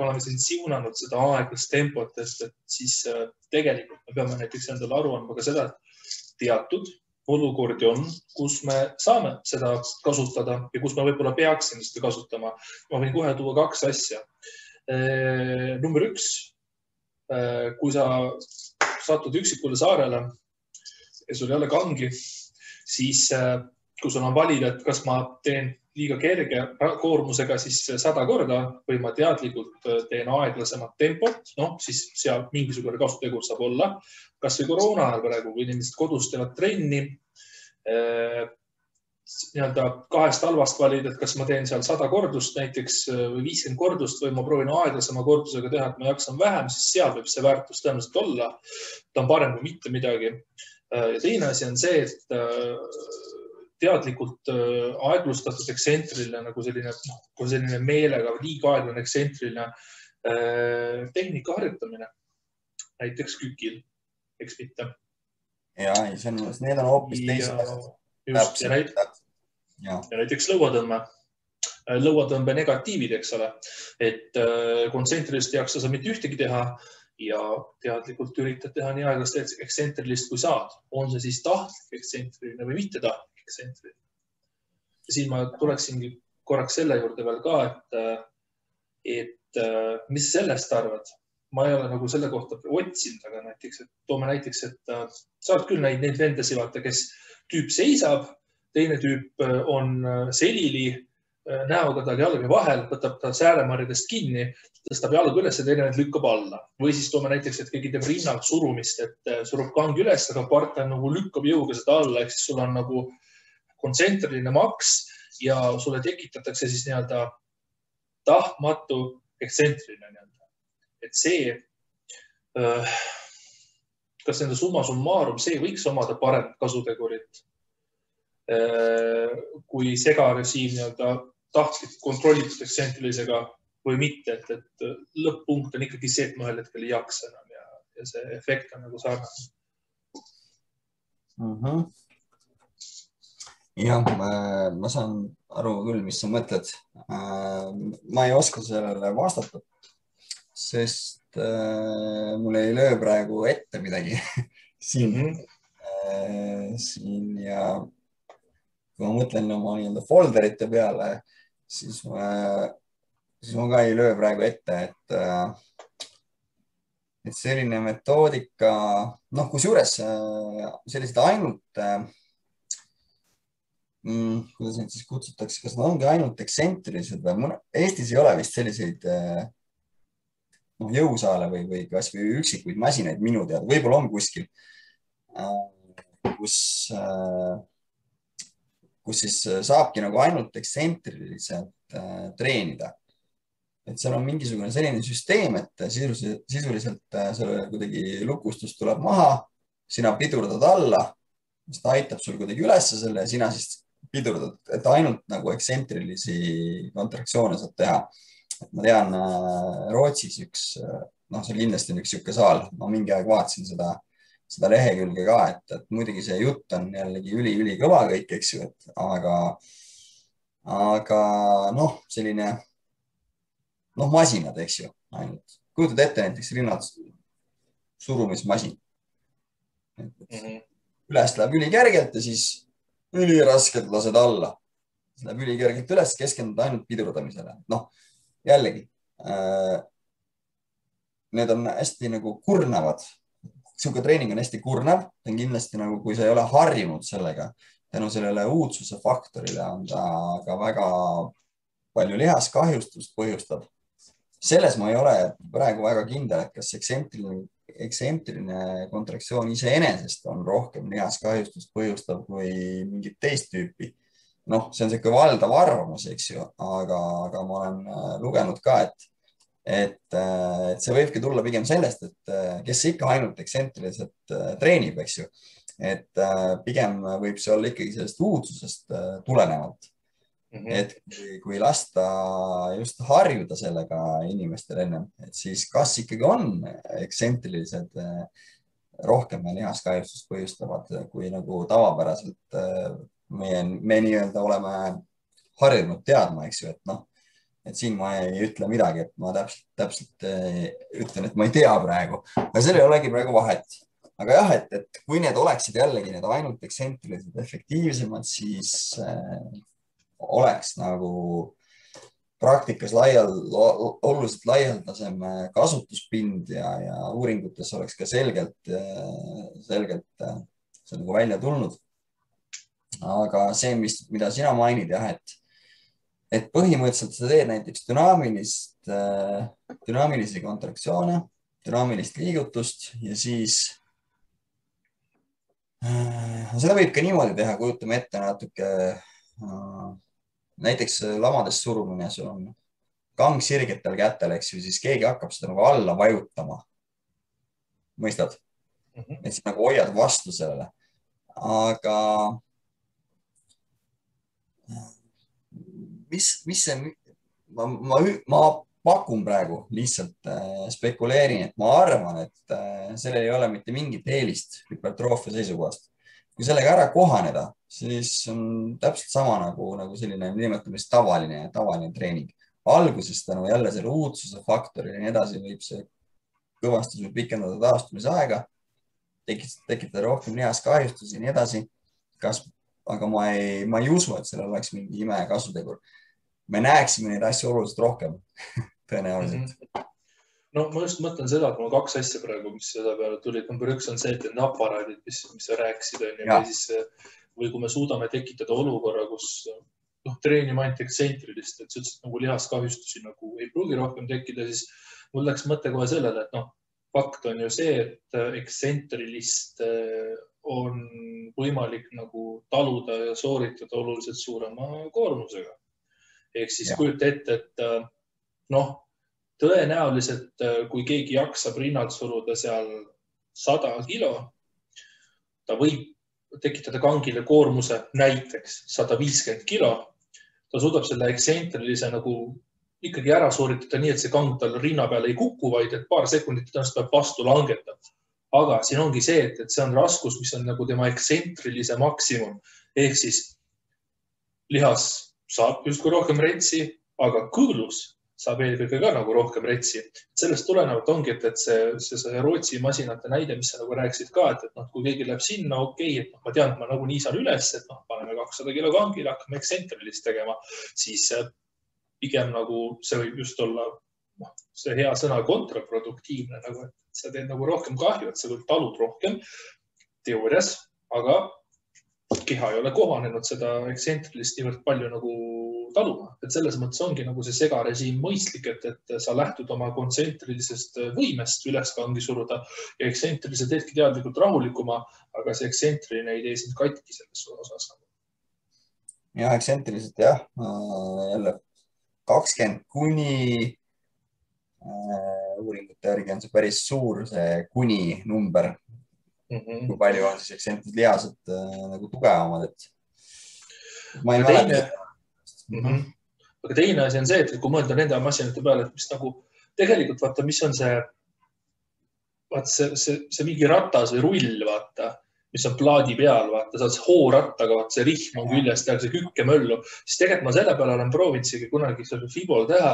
oleme siin siunanud seda aeglast tempot, et siis tegelikult me peame näiteks endale aru andma ka seda, et teatud olukordi on, kus me saame seda kasutada ja kus me võib-olla peaksime seda kasutama. Ma võin kohe tuua 2 asja. Number 1, kui sa satud üksikule saarele ja sul ei ole kangi, siis kui sul on valida, et kas ma teen liiga kerge koormusega siis 100 korda või ma teadlikult teen aeglasemat tempot, siis seal mingisugune kasutegur saab olla. Kas või koroona ajal praegu, kui inimesed kodus teevad trenni, nii-öelda 2 halvast valida, et kas ma teen seal 100 kordust näiteks või 50 kordust või ma proovin aeglasema kordusega teha, et ma jaksan vähem, siis seal võib see väärtus tõenäoliselt olla. Ta on parem kui mitte midagi. Ja teine asi on see, et teadlikult aeglustatud eksentriline, nagu selline meelega liiga aeglane eksentriline tehnika harjutamine. Näiteks kükil, eks mitte. Ja, need on hoopis teised asjad. Ja näiteks lõuatõmme. Lõuatõmbe negatiivid, eks ole. Et kontsentrilist ei jaksa sa mitte ühtegi teha ja teadlikult üritad teha nii aeglast eksentrilist kui saad. On see siis tahtlik eksentriline või mitte tahtlik? Ja siin ma tuleksingi korraks selle juurde veel ka, et mis sellest arvad? Ma ei ole nagu selle kohta otsinud, aga näiteks, et toome näiteks, et saad küll neid vendasi vaata, kes tüüp seisab, teine tüüp on selili, näoga tal jalge vahel, võtab ta sääremarjadest kinni, tõstab jalga üles ja teine lükkab alla. Või siis toome näiteks, et keegi teeb rinnalt surumist, et surub kangi üles, aga partner nagu lükkab jõuga seda alla, ehk siis sul on nagu kontsentriline maks ja sulle tekitatakse siis nii-öelda tahtmatu eksentriline nii-öelda. Et see, kas nende summa summarum, see võiks omada parem kasutegurit kui segarežiim nii-öelda tahtlik kontrollitud eksentrilisega või mitte, et lõpp-punkt on ikkagi see, et ma ühel hetkel ei jaksa enam ja see efekt on nagu sarnane. Jah, ma saan aru küll, mis sa mõtled. Ma ei oska sellele vastata, sest mul ei löö praegu ette midagi siin ja kui ma mõtlen oma nii-öelda folderite peale, siis ma ka ei löö praegu ette, et selline metoodika, kusjuures sellised ainult kuidas neid siis kutsutakse, kas nad ongi ainult eksentrilised või Eestis ei ole vist selliseid jõusaale või kas või üksikuid masinaid minu teada, võib-olla on kuskil, kus siis saabki nagu ainult eksentriliselt treenida. Et seal on mingisugune selline süsteem, et sisuliselt selle kuidagi lukustus tuleb maha, sina pidurdad alla, mis ta aitab sul kuidagi ülesse selle ja sina siis pidurdad, et ainult nagu eksentrilisi kontraktsioone saab teha. Et ma tean Rootsis see kindlasti on üks siuke saal, ma mingi aeg vaatasin seda lehekülge ka, et muidugi see jutt on jällegi üli kõva kõik, eks ju, aga selline masinad, eks ju, ainult. Kujutad ette näiteks rinnad surumismasin. Üles läheb ülikergelt ja siis üliraskelt lased alla. Läheb ülikergelt üles, keskendud ainult pidurdamisele. Jällegi, need on hästi nagu kurnavad. Siuke treening on hästi kurnav. Ta on kindlasti nagu, kui sa ei ole harjunud sellega, tänu sellele uudsuse faktorile on ta ka väga palju lihaskahjustust põhjustab. Selles ma ei ole praegu väga kindel, et kas eksentriline kontraktsioon iseenesest on rohkem lihaskahjustust põhjustav kui mingit teist tüüpi. See on selline valdav arvamus, eks ju, aga ma olen lugenud ka, et see võibki tulla pigem sellest, et kes ikka ainult eksentriliselt treenib, eks ju, et pigem võib see olla ikkagi sellest uudsusest tulenevalt. Et kui lasta just harjuda sellega inimestel ennem, et siis kas ikkagi on eksentrilised rohkem lihaskahjustust põhjustavad, kui nagu tavapäraselt me nii-öelda oleme harjunud teadma, eks ju, et et siin ma ei ütle midagi, et ma täpselt ütlen, et ma ei tea praegu, aga seal ei olegi praegu vahet. Aga jah, et kui need oleksid jällegi need ainult ekstsentrilised efektiivsemad, siis oleks nagu praktikas oluliselt laialdasem kasutuspind ja uuringutes oleks ka selgelt see nagu välja tulnud. Aga see, mida sina mainid, jah, et põhimõtteliselt sa teed näiteks dünaamilisi kontraktsioone, dünaamilist liigutust ja siis seda võib ka niimoodi teha, kujutame ette natuke, näiteks lamades surumine, sul on kang sirgetel kätel, eks ju, siis keegi hakkab seda nagu alla vajutama. Mõistad? Et siis nagu hoiad vastu sellele. Aga mis see, ma pakun praegu, lihtsalt spekuleerin, et ma arvan, et sellel ei ole mitte mingit eelist hüpertroofia seisukohast. Kui sellega ära kohaneda, siis on täpselt sama nagu selline nimetamist tavaline treening. Alguses tänu jälle selle uudsuse faktori ja nii edasi võib see kõvasti pikendada taastumise aega, tekitada rohkem lihas kahjustusi ja nii edasi. Aga ma ei usu, et sellel oleks mingi ime kasutegur. Me näeksime neid asju oluliselt rohkem, tõenäoliselt. No ma just mõtlen seda, et mul 2 asja praegu, mis seda peale tulid. Number 1 on see, et need aparaadid, mis sa rääkisid, või kui me suudame tekitada olukorra, kus treenima ainult ekstsentrilist, et sa ütlesid, nagu lihaskahjustusi nagu ei pruugi rohkem tekkida, siis mul läks mõte kohe sellele, et fakt on ju see, et ekstsentrilist on võimalik nagu taluda ja sooritada oluliselt suurema koormusega. Ehk siis kujuta ette, et tõenäoliselt, kui keegi jaksab rinnalt suruda seal 100 kilo, ta võib tekitada kangile koormuse näiteks 150 kilo. Ta suudab selle ekstsentrilise nagu ikkagi ära sooritada nii, et see kang tal rinna peale ei kuku, vaid et paar sekundit tõenäoliselt peab vastu langetada. Aga siin ongi see, et see on raskus, mis on nagu tema eksentriilise maksimum. Ehk siis lihas saab justkui rohkem retsi, aga kõõlus saab eelkõige ka nagu rohkem retsi. Sellest tulenevalt ongi, et see Rootsi masinate näide, mis sa nagu rääkisid ka, et kui keegi läheb sinna, et ma tean, et ma nagu nii saan üles, et paneme 200 kilo kangile, hakkame ekstsentrilist tegema, siis pigem nagu see võib just olla see hea sõna kontraproduktiivne, nagu, et sa teed nagu rohkem kahju, et sa küll talud rohkem teoorias, aga keha ei ole kohanenud seda ekstsentrilist niivõrd palju nagu taluma. Et selles mõttes ongi nagu see segarežiim mõistlik, et sa lähtud oma kontsentrilisest võimest üles kangi suruda ja ekstsentriline teedki teadlikult rahulikuma, aga see ekstsentriline ei tee sind katki selles osas. Ja, ekstsentriliselt jah, jälle 20 kuni uuringute järgi on see päris suur, see kuni number. Kui palju on siis ekstsentrilised lihased nagu tugevamad, et ma ei mäleta. Aga teine asi on see, et kui mõelda nende masinate peale, et mis nagu tegelikult vaata, mis on see mingi ratas või rull, vaata, mis on plaadi peal, vaata, sa oled hoorattaga, vaata, see rihm on küljest ja see kükkemöllu, siis tegelikult ma selle peale olen proovinud kunagi Fibol teha,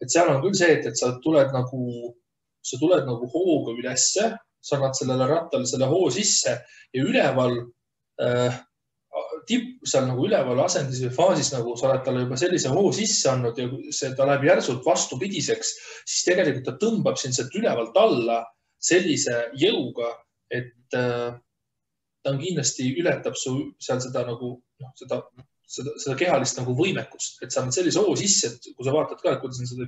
et seal on küll see, et sa tuled nagu hooga ülesse, sa annad sellele rattale selle hoo sisse ja üleval seal nagu üleval asendis või faasis nagu sa oled talle juba sellise hoo sisse andnud ja ta läheb järsult vastupidiseks, siis tegelikult ta tõmbab sind sealt ülevalt alla sellise jõuga, et ta on kindlasti ületab su seal seda nagu seda kehalist nagu võimekust, et sa annad sellise hoo sisse, et kui sa vaatad ka, et kuidas on seda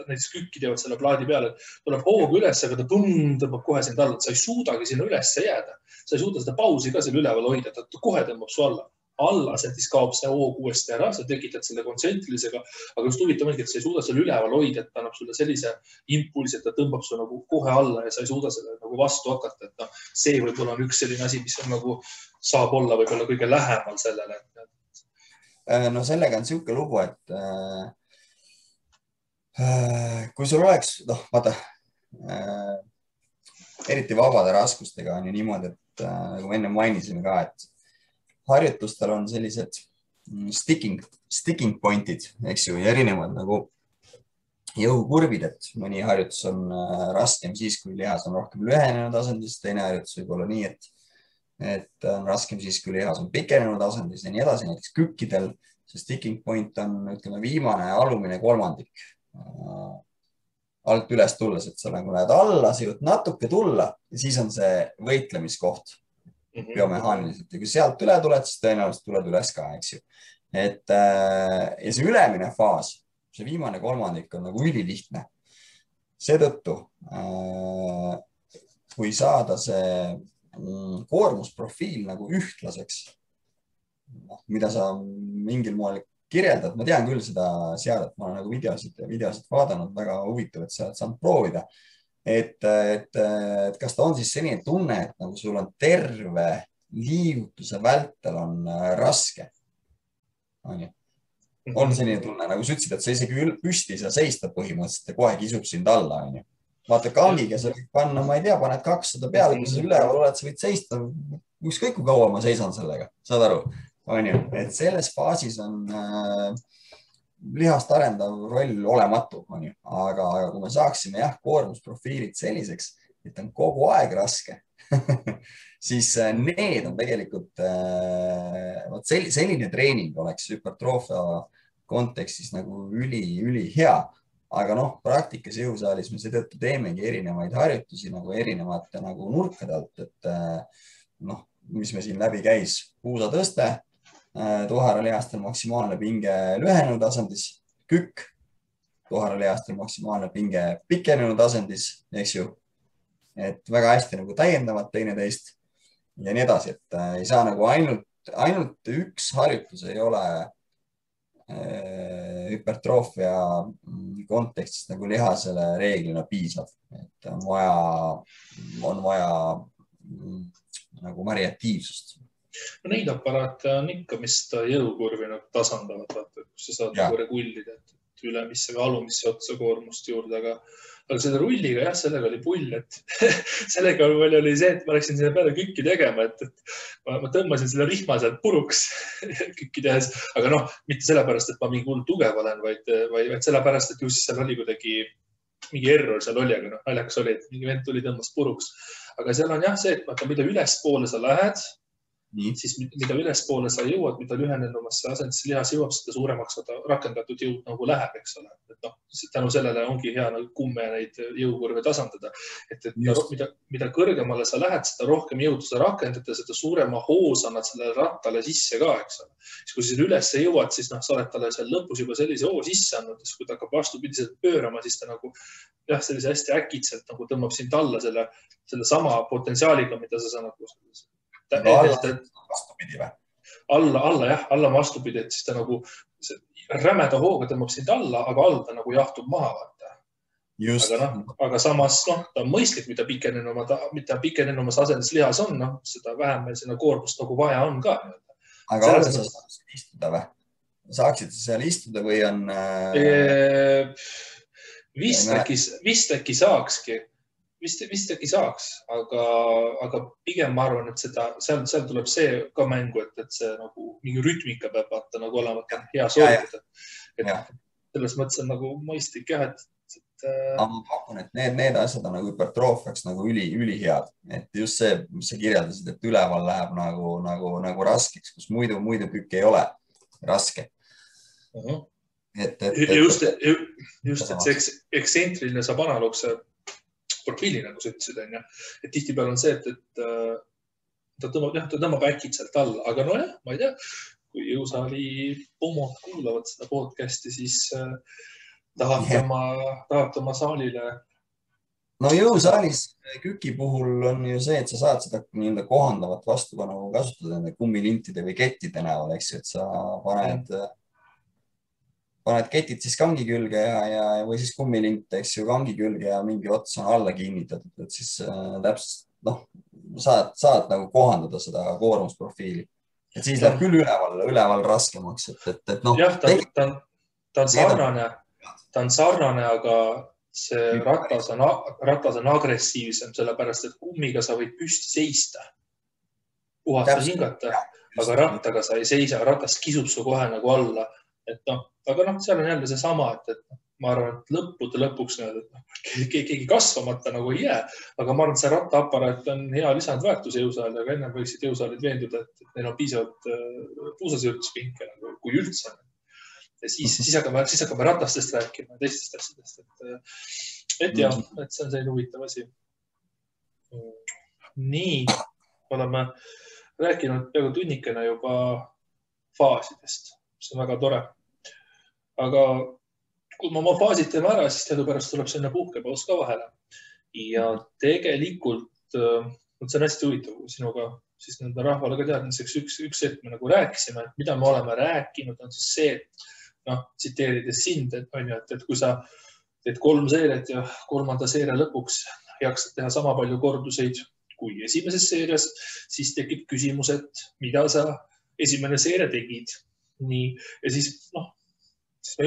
näiteks kükki teevad selle plaadi peale, et tuleb hooga üles, aga ta tõmbab kohe sind alla, et sa ei suudagi sinna üles jääda. Sa ei suuda seda pausi ka seal üleval hoida, ta kohe tõmbab su alla. Siis kaob see hoog uuesti ära, sa tekitad selle kontsentrilisega, aga just huvitav ongi, et sa ei suuda selle üleval hoida, et ta annab sulle sellise impulsi, et ta tõmbab su nagu kohe alla ja sa ei suuda selle nagu vastu hakata. Et see võib-olla on üks selline asi, mis on nagu saab olla võib-olla kõige lähemal sellele. No sellega on siuke lugu, et kui sul oleks, vaata, eriti vabade raskustega on ju niimoodi, et nagu enne mainisime ka, et harjutustel on sellised sticking pointid, eks ju, ja erinevad nagu jõukurvid, et mõni harjutus on raskem siis, kui lihas on rohkem lühenenud asendis, teine harjutus võib olla nii, et on raskem siis, kui lihas on pikenenud asendis ja nii edasi. Näiteks kükkidel see sticking point on, ütleme, viimane alumine kolmandik alt üles tulles, et sa nagu lähed alla, sa jõud natuke tulla ja siis on see võitlemiskoht biomehaaniliselt ja kui sealt üle tuled, siis tõenäoliselt tuled üles ka, eks ju. Ja see ülemine faas, see viimane kolmandik on nagu ülilihtne. Seetõttu, kui saada see koormusprofiil nagu ühtlaseks, mida sa mingil moel kirjeldad, ma tean küll seda seadet, ma olen nagu videosid vaadanud, väga huvitav, et sa oled saanud proovida. Et kas ta on siis selline tunne, et nagu sul on terve liigutuse vältel on raske. On selline tunne, nagu sa ütlesid, et sa isegi püsti sa seista põhimõtteliselt ja kohe kisub sind alla. Vaata kangiga sa võid panna, ma ei tea, paned 200 peale, kui sa üleval oled, sa võid seista. Ükskõik kui kaua ma seisan sellega, saad aru? Et selles faasis on lihast arendav roll olematu, aga kui me saaksime koormusprofiilid selliseks, et on kogu aeg raske, siis need on tegelikult, selline treening oleks hüpertroofia kontekstis nagu üli hea, aga praktikas jõusaalis me seetõttu teemegi erinevaid harjutusi nagu erinevate nagu nurkade alt, et mis me siin läbi käis, puusatõste, tuharalihastel maksimaalne pinge lühenenud asendis, kükk, tuharalihastel maksimaalne pinge pikenenud asendis, eks ju, et väga hästi nagu täiendavad teineteist ja nii edasi, et ei saa nagu ainult üks harjutus ei ole hüpertroofia kontekstis nagu lihasele reeglina piisav, et on vaja nagu variatiivsust. Neid aparaate on ikka, mis jõukurvi nagu tasandavad, vaata, kus sa saad nagu regullida, et ülemisse või alumisse otsa koormust juurde, aga selle rulliga, sellega oli pull, et sellega oli see, et ma läksin sinna peale kükki tegema, et ma tõmbasin selle rihma sealt puruks kükki tehes, aga mitte sellepärast, et ma mingi hull tugev olen, vaid sellepärast, et just seal oli kuidagi mingi error seal oli, aga naljakas oli, et mingi vend tuli tõmbas puruks. Aga seal on see, et mida ülespoole sa lähed, siis mida ülespoole sa jõuad, mida lühenenumasse asendisse lihas jõuab, seda suuremaks rakendatud jõud nagu läheb, eks ole. Et tänu sellele ongi hea nagu kumme neid jõukurve tasandada. Et mida kõrgemale sa lähed, seda rohkem jõudu sa rakendad ja seda suurema hoos annad sellele rattale sisse ka, eks ole. Siis kui sa üles jõuad, siis sa oled talle seal lõpus juba sellise hoo sisse andnud, siis kui ta hakkab vastupidiselt pöörama, siis ta nagu sellise hästi äkitselt nagu tõmbab sind alla selle sama potentsiaaliga, mida sa nagu vastupidi või? Alla vastupidi, et siis ta nagu rämeda hooga tõmbab sind alla, aga all ta nagu jahtub maha. Aga samas ta on mõistlik, mida pikenenumas asendis lihas on, seda vähem meil sinna koormust nagu vaja on ka. Aga alla sa saaksid istuda või? Saaksid sa seal istuda või on... Vist äkki saakski. Vist äkki saaks, aga pigem ma arvan, et seal tuleb see ka mängu, et see nagu mingi rütmika peab vaata nagu olema hea sooritada. Selles mõttes on nagu mõistlik et... Ma pakun, et need asjad on nagu hüpertroofiaks nagu ülihead. Et just see, mis sa kirjeldasid, et üleval läheb nagu raskeks, kus muidu kükk ei ole raske. Just, et see eksentriline saab analoogse profiili, nagu sa ütlesid, et tihtipeale on see, et ta tõmbab äkitselt alla, aga ma ei tea, kui jõusaali pomod kuulavad seda podcasti, siis tahavad oma saalile. No jõusaalis küki puhul on ju see, et sa saad seda kohandavat vastupanu kasutada kummilintide või kettide näol, eks ju, et sa paned ketid siis kangi külge või siis kummilint, eks ju, kangi külge ja mingi ots on alla kinnitatud, et siis täpselt, saad nagu kohandada seda koormusprofiili. Et siis läheb küll üleval raskemaks, et jah, ta on sarnane, aga see ratas on agressiivsem, sellepärast, et kummiga sa võid püsti seista, puhata hingata, aga rattaga sa ei seisa, ratas kisub su kohe nagu alla. Aga seal on jälle see sama, et ma arvan, et lõpuks keegi kasvamata nagu ei jää, aga ma arvan, et see rattaaparaat on hea lisandväärtus jõusaali, aga ennem võiksid jõusaalid veenduda, et neil on piisavalt puusasirtuspinke, kui üldse. Ja siis hakkame ratastest rääkima, teistest asjadest. Et jah, et see on selline huvitav asi. Nii, oleme rääkinud peaaegu tunnikene juba faasidest. See on väga tore. Aga kui me oma faasid teeme ära, siis teadupärast tuleb sinna puhkepaus ka vahele. Ja tegelikult, see on hästi huvitav sinuga, siis nende rahvale ka teadmiseks üks hetk me nagu rääkisime, et mida me oleme rääkinud, on siis see, et tsiteerides sind, et kui sa teed 3 seeriat ja 3. seeria lõpuks jaksad teha sama palju korduseid kui esimeses seerias, siis tekib küsimus, et mida sa esimene seeria tegid. Nii, ja siis me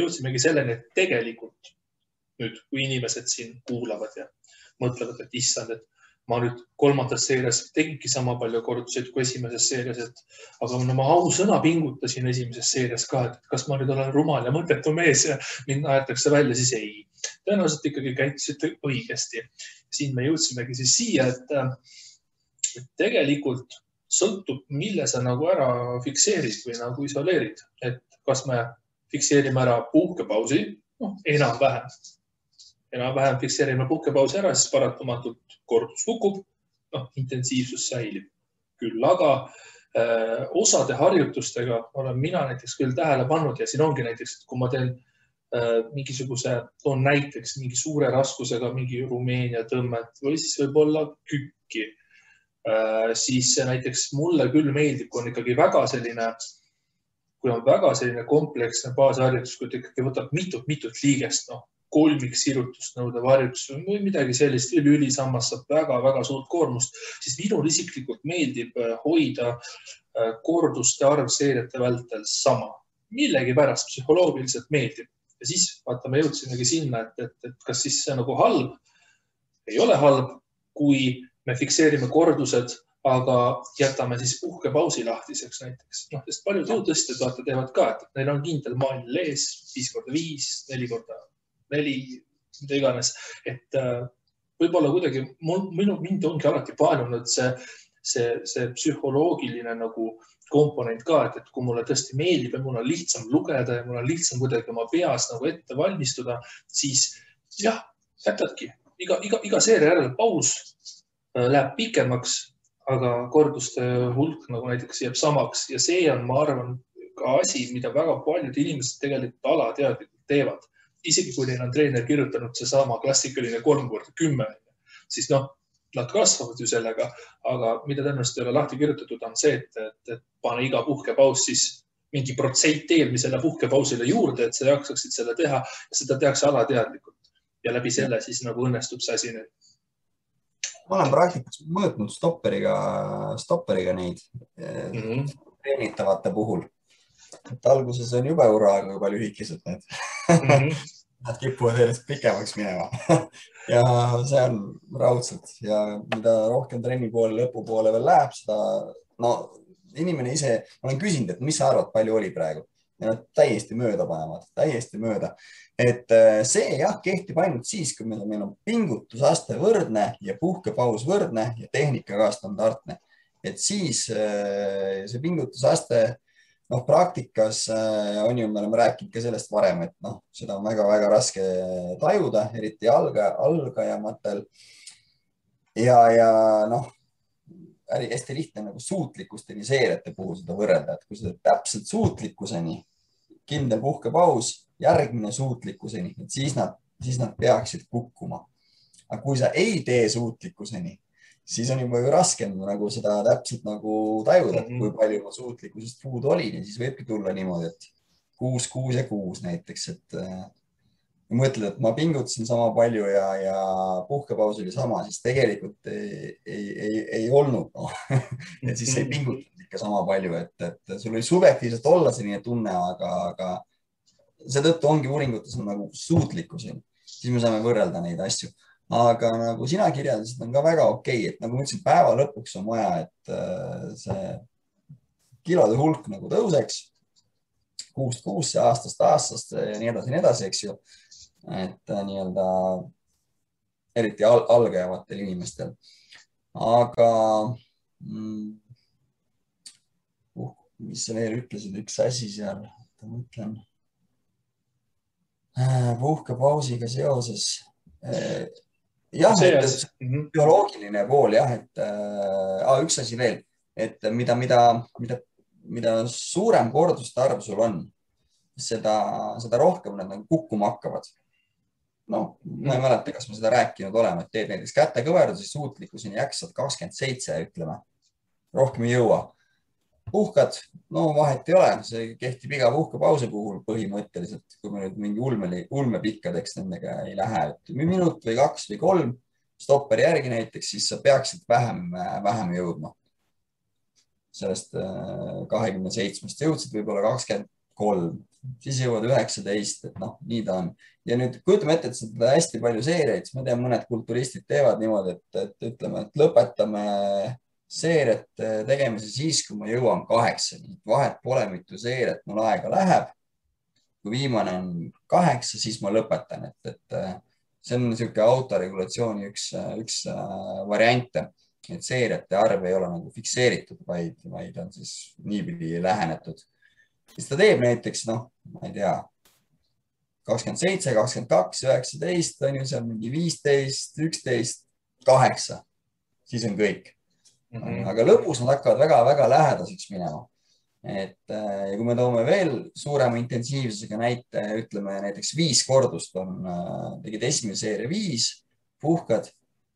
jõudsimegi selleni, et tegelikult nüüd, kui inimesed siin kuulavad ja mõtlevad, et issand, et ma nüüd 3. seerias tegingi sama palju korduseid kui esimeses seerias, aga ma ausõna pingutasin esimeses seerias ka, et kas ma nüüd olen rumal ja mõttetu mees ja mind aetakse välja, siis ei. Tõenäoliselt ikkagi käitusite õigesti. Siin me jõudsimegi siis siia, et tegelikult sõltub, mille sa nagu ära fikseerid või nagu isoleerid. Et kas me fikseerime ära puhkepausi, enam-vähem fikseerime puhkepausi ära, siis paratamatult kordus kukub, intensiivsus säilib. Küll aga osade harjutustega olen mina näiteks küll tähele pannud ja siin ongi näiteks, et kui ma teen toon näiteks mingi suure raskusega mingi Rumeenia tõmmet või siis võib-olla kükki, siis näiteks mulle küll meeldib, kui on ikkagi väga selline kompleksne baasharjutus, kui ta ikkagi võtab mitut liigest, kolmiksirutust nõudev harjutus või midagi sellist, ülisammas saab väga suurt koormust, siis minul isiklikult meeldib hoida korduste arv seeriate vältel sama. Millegi pärast psühholoogiliselt meeldib. Ja siis me jõudsimegi sinna, et kas siis see nagu halb, ei ole halb, kui me fikseerime kordused, aga jätame siis puhkepausi lahtiseks näiteks. Sest paljud jõutõstjad teevad ka, et neil on kindel maanil ees 5x5, 4x4, mida iganes. Et võib-olla kuidagi mind ongi alati paelunud see psühholoogiline nagu komponent ka, et kui mulle tõesti meeldib ja mul on lihtsam lugeda ja mul on lihtsam kuidagi oma peas nagu ette valmistuda, siis jah, jätadki. Iga seeria järel paus läheb pikemaks, aga korduste hulk nagu näiteks jääb samaks ja see on, ma arvan, ka asi, mida väga paljud inimesed tegelikult alateadlikult teevad. Isegi kui neil on treener kirjutanud see sama klassikaline 3x10, siis nad kasvavad ju sellega, aga mida tõenäoliselt ei ole lahti kirjutatud on see, et pane iga puhkepaus siis mingi protsent eelmisele puhkepausile juurde, et sa jaksaksid selle teha ja seda tehakse alateadlikult. Ja läbi selle siis nagu õnnestub see asi nüüd. Ma olen praktikas mõõtnud stopperiga neid treenitavate puhul. Et alguses on jube uraga, kui palju lühikesed need. Nad kipuvad järjest pikemaks minema ja see on raudselt ja mida rohkem trenni poole lõpu poole veel läheb, seda inimene ise, ma olen küsinud, et mis sa arvad, palju oli praegu ja nad täiesti mööda panevad, täiesti mööda. Et see jah, kehtib ainult siis, kui meil on pingutusaste võrdne ja puhkepaus võrdne ja tehnika ka standardne. Et siis see pingutusaste praktikas on ju, me oleme rääkinud ka sellest varem, et seda on väga-väga raske tajuda, eriti algajamatel. Ja hästi lihtne nagu suutlikkusteni seeriate puhul seda võrrelda, et kui seda täpselt suutlikkuseni, kindel puhkepaus, järgmine suutlikkuseni, et siis nad peaksid kukkuma. Aga kui sa ei tee suutlikkuseni, siis on juba ju raskem nagu seda täpselt nagu tajuda, kui palju ma suutlikkusest puudu olin ja siis võibki tulla niimoodi, et 6, 6 ja 6 näiteks, et mõtled, et ma pingutasin sama palju ja puhkepaus oli sama, siis tegelikult ei olnud. Et siis ei pingutanud ikka sama palju, et sul oli subjektiivselt olla selline tunne, aga seetõttu ongi uuringutes on nagu suutlikkuseni, siis me saame võrrelda neid asju. Aga nagu sina kirjeldasid, on ka väga okei, et nagu ma ütlesin, päeva lõpuks on vaja, et see kilode hulk nagu tõuseks, kuust kuusse, aastast ja nii edasi, eks ju. et nii-öelda eriti algajavatel inimestel. Aga mis sa veel ütlesid, üks asi seal, ma mõtlen puhkepausiga seoses. Jah, bioloogiline pool jah, et üks asi veel, et mida suurem korduste arv sul on, seda rohkem nad kukkuma hakkavad. No, ma ei mäleta, kas me seda rääkinud oleme, et teed näiteks kätekõverdusi suutlikkuseni jaksad 27, ütleme, rohkem ei jõua. Puhkad, no vahet ei ole, see kehtib iga puhkepausi puhul põhimõtteliselt, kui me nüüd mingi ulmepikkadeks nendega ei lähe, et minut või 2 või 3 stopperi järgi näiteks, siis sa peaksid vähem jõudma. Sellest 27-st jõudsid võib-olla 23, siis jõuad 19, et noh, nii ta on. Ja nüüd kujutame ette, et seda hästi palju seeriaid, ma tean, mõned kulturistid teevad niimoodi, et ütleme, et lõpetame seeriat tegemise siis, kui ma jõuan 8. Vahet pole, mitu seeriat mul aega läheb. Kui viimane on 8, siis ma lõpetan. Et see on niisugune autoregulatsiooni üks variante, et seeriate arv ei ole nagu fikseeritud, vaid on siis niipidi lähenetud. Siis ta teeb näiteks, noh, ma ei tea, 27, 22, 19, on ju seal mingi 15, 11, 8. Siis on kõik. Aga lõpus nad hakkavad väga-väga lähedaseks minema. Ja kui me toome veel suurema intensiivsusega näite, ütleme näiteks 5 kordust tegid esimene seeria 5, puhkad,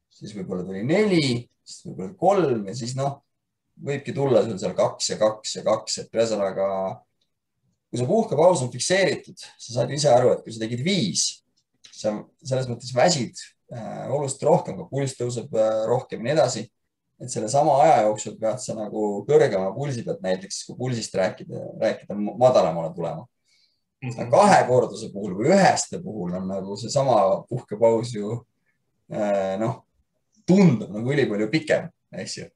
siis võib-olla tuli 4, siis võib-olla 3 ja siis noh, võibki tulla sul seal 2 ja 2 ja 2, et ühesõnaga, kui see puhkepaus on fikseeritud, sa saad ise aru, et kui sa tegid 5, sa selles mõttes väsid oluliselt rohkem, kui pulss tõuseb rohkem ja nii edasi. Et selle sama aja jooksul pead sa nagu kõrgema pulsi pealt näiteks, kui pulsist rääkida madalamale tulema. 2 korduse puhul või 1 puhul on nagu see sama puhkepaus ju tundub nagu ülipalju pikem, eks ju.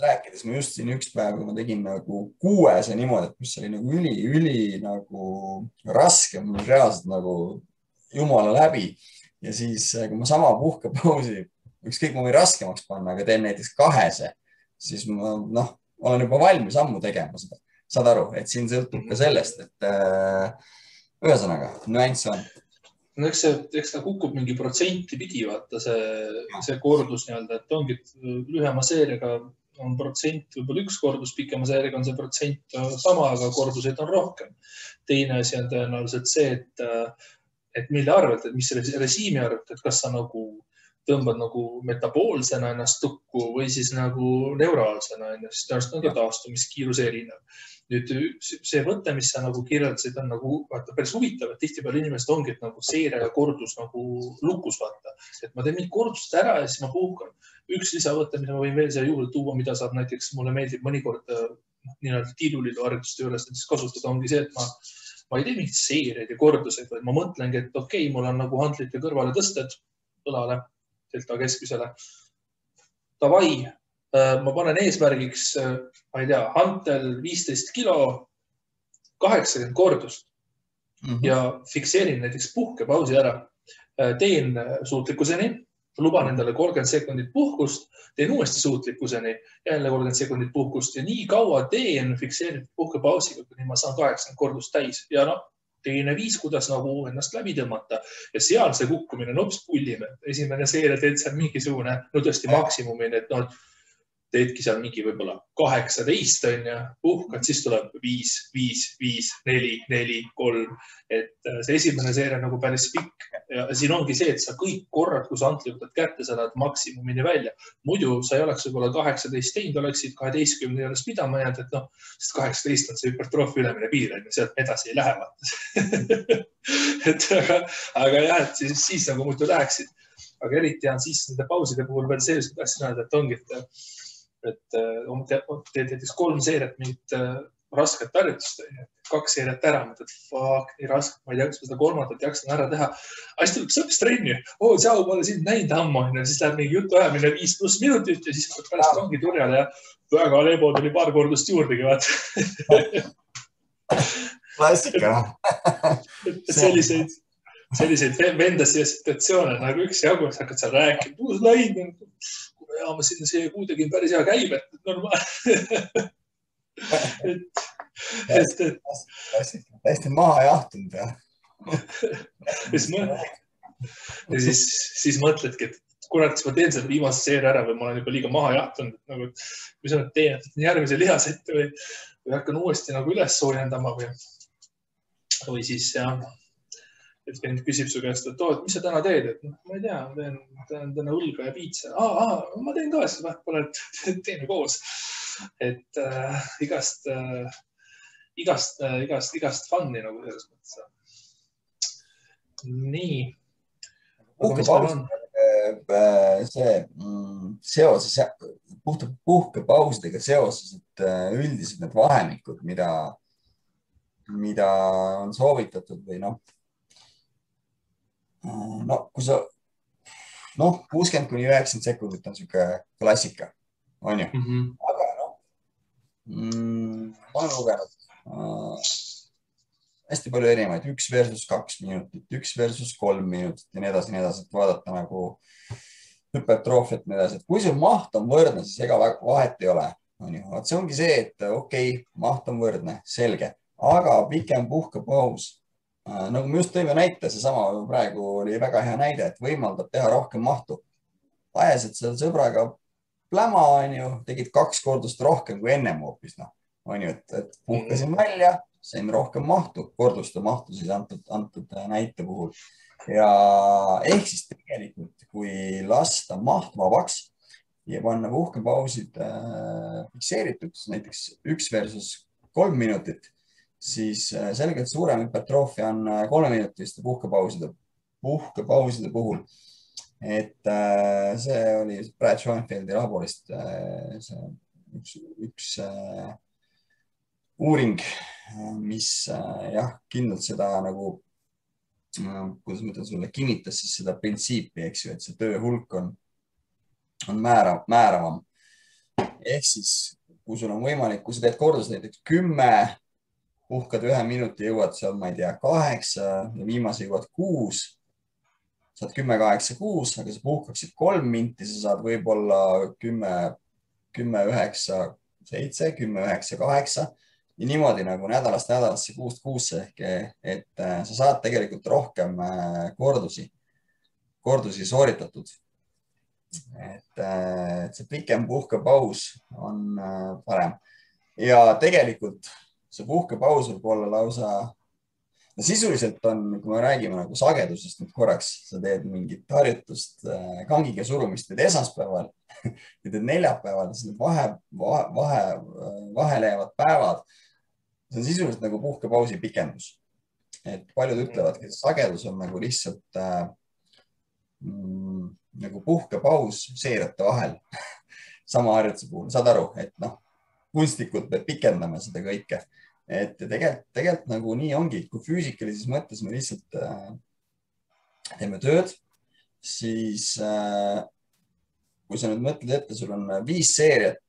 Rääkides ma just siin üks päev, kui ma tegin nagu 6 niimoodi, et mis oli nagu üli nagu raske, mul reaalselt nagu jumala läbi. Ja siis, kui ma sama puhkepausi, ükskõik ma võin raskemaks panna, aga teen näiteks 2, siis ma olen juba valmis ammu tegema seda. Saad aru, et siin sõltub ka sellest, et ühesõnaga, nüanss on. No eks ta kukub mingi protsenti pidi, vaata see kordus nii-öelda, et ongi lühema seeriaga on protsent, võib-olla 1 kordus, pikema seeriaga on see protsent sama, aga korduseid on rohkem. Teine asi on tõenäoliselt see, et mille arvelt, et mis režiimi arvelt, et kas sa nagu tõmbad nagu metaboolsena ennast tukku või siis nagu neuraalsena ennast, tõenäoliselt on ka taastumiskiiruse erinev. Nüüd see võte, mis sa nagu kirjeldasid, on nagu päris huvitav, et tihtipeale inimesed ongi, et nagu seire ja kordus nagu lukus vaata. Et ma teen mingi kordust ära ja siis ma puhkan. Üks lisavõte, mida ma võin veel siia juurde tuua, mida saab näiteks, mulle meeldib mõnikord nii-öelda tiiruliidu harjutuste juures kasutada, ongi see, et ma ei tee mingit seeriaid ja korduseid, vaid ma mõtlengi, et okei, mul on nagu handlite kõrvale tõsted õlale, delta keskmisele. Davai, ma panen eesmärgiks, ma ei tea, hantel 15 kilo, 80 kordust ja fikseerin näiteks puhkepausi ära. Teen suutlikkuseni, luban endale 30 sekundit puhkust, teen uuesti suutlikkuseni, jälle 30 sekundit puhkust ja nii kaua teen fikseeritud puhkepausiga, kuni ma saan 80 kordust täis. Ja teine viis, kuidas nagu ennast läbi tõmmata ja seal see kukkumine on hoopis pullib. Esimene seeria teed seal mingisugune, tõesti maksimumini, et teedki seal mingi võib-olla 18 on ja puhkad, siis tuleb 5, 5, 5, 4, 4, 3. Et see esimene seeria nagu päris pikk ja siin ongi see, et sa kõik korrad, kui sa antli võtad kätte, sa lähed maksimumini välja. Muidu sa ei oleks võib-olla 18 teinud, oleksid 12 juures pidama jäänud, et sest 18 on see hüpertroofi ülemine piir, et sealt edasi ei lähe. Aga jah, et siis nagu muidu läheksid. Aga eriti on siis nende pauside puhul veel see, et tahtsin öelda, et ongi, et teed näiteks 3 seeriat mingit rasket harjutust, 2 seeriat ära, mõtled, fuck, nii raske, ma ei tea, kas ma seda 3. jaksan ära teha. Aga siis tuleb sõpist trenni, tšau, ma olen sind näinud ammu, siis läheb mingi jutu ajamine 5+ minutit ja siis pärast ongi turjale ja väga lebo tuli paar kordust juurdegi, vaata. klassika. selliseid vendasi ja situatsioone nagu üksjagu, sa hakkad seal rääkima, uus lain, ma siin see kuu tegin päris hea käib, et normaalne. Täiesti maha jahtunud ja. Ja siis mõtledki, et kurat, kas ma teen selle viimase seeria ära või ma olen juba liiga maha jahtunud, nagu, mis ma nüüd teen, järgmise lihasette või hakkan uuesti nagu üles soojendama või siis jah, et vend küsib su käest, et mis sa täna teed, et ma ei tea, ma teen täna õlga ja piitsa. Ma teen ka, siis vahepeal teeme koos. Et igast fun'i nagu selles mõttes. Nii. Puhkepausidega seoses, et üldiselt need vahemikud, mida on soovitatud või kui sa 60–90 sekundit on siuke klassika, on ju? Aga ma olen lugenud hästi palju erinevaid, 1 versus 2 minutit, 1 versus 3 minutit ja nii edasi, et vaadata nagu hüpertroofiat ja nii edasi, et kui sul maht on võrdne, siis ega vahet ei ole. See ongi see, et okei, maht on võrdne, selge, aga pikem puhkepaus, nagu me just tõime näite, seesama praegu oli väga hea näide, et võimaldab teha rohkem mahtu. Ajasid seal sõbraga pläma, tegid 2 kordust rohkem kui ennem hoopis, et puhkasin välja, sain rohkem mahtu, korduste mahtu siis antud näite puhul. Ja ehk siis tegelikult, kui lasta maht vabaks ja panna puhkepausid fikseerituks, näiteks 1 versus 3 minutit, siis selgelt suurem hüpertroofia on 3-minutiste puhkepauside puhul. Et see oli Brad Schoenfeldi raportist üks uuring, mis kindlalt seda nagu, kuidas ma ütlen sulle, kinnitas siis seda printsiipi, eks ju, et see töö hulk on määravam. Ehk siis, kui sul on võimalik, kui sa teed kordus näiteks 10, puhkad 1 minuti, jõuad seal, ma ei tea, 8 ja viimase jõuad 6, saad 10, 8, 6, aga sa puhkaksid 3 minti, sa saad võib-olla 10, 9, 7, 10, 9, 8 ja niimoodi nagu nädalast nädalasse 6 kuusse ehk, et sa saad tegelikult rohkem kordusi sooritatud. Et see pikem puhkepaus on parem ja tegelikult see puhkepaus võib olla lausa, sisuliselt on, kui me räägime nagu sagedusest nüüd korraks, sa teed mingit harjutust, kangiga surumist teed esmaspäeval ja teed neljapäeval, siis need vahele jäävad päevad. See on sisuliselt nagu puhkepausi pikendus. Et paljud ütlevadki, et sagedus on nagu lihtsalt nagu puhkepaus seeriate vahel sama harjutuse puhul. Saad aru, et kunstlikult me pikendame seda kõike. Et tegelikult nagu nii ongi, kui füüsikalises mõttes me lihtsalt teeme tööd, siis kui sa nüüd mõtled ette, sul on 5 seeriat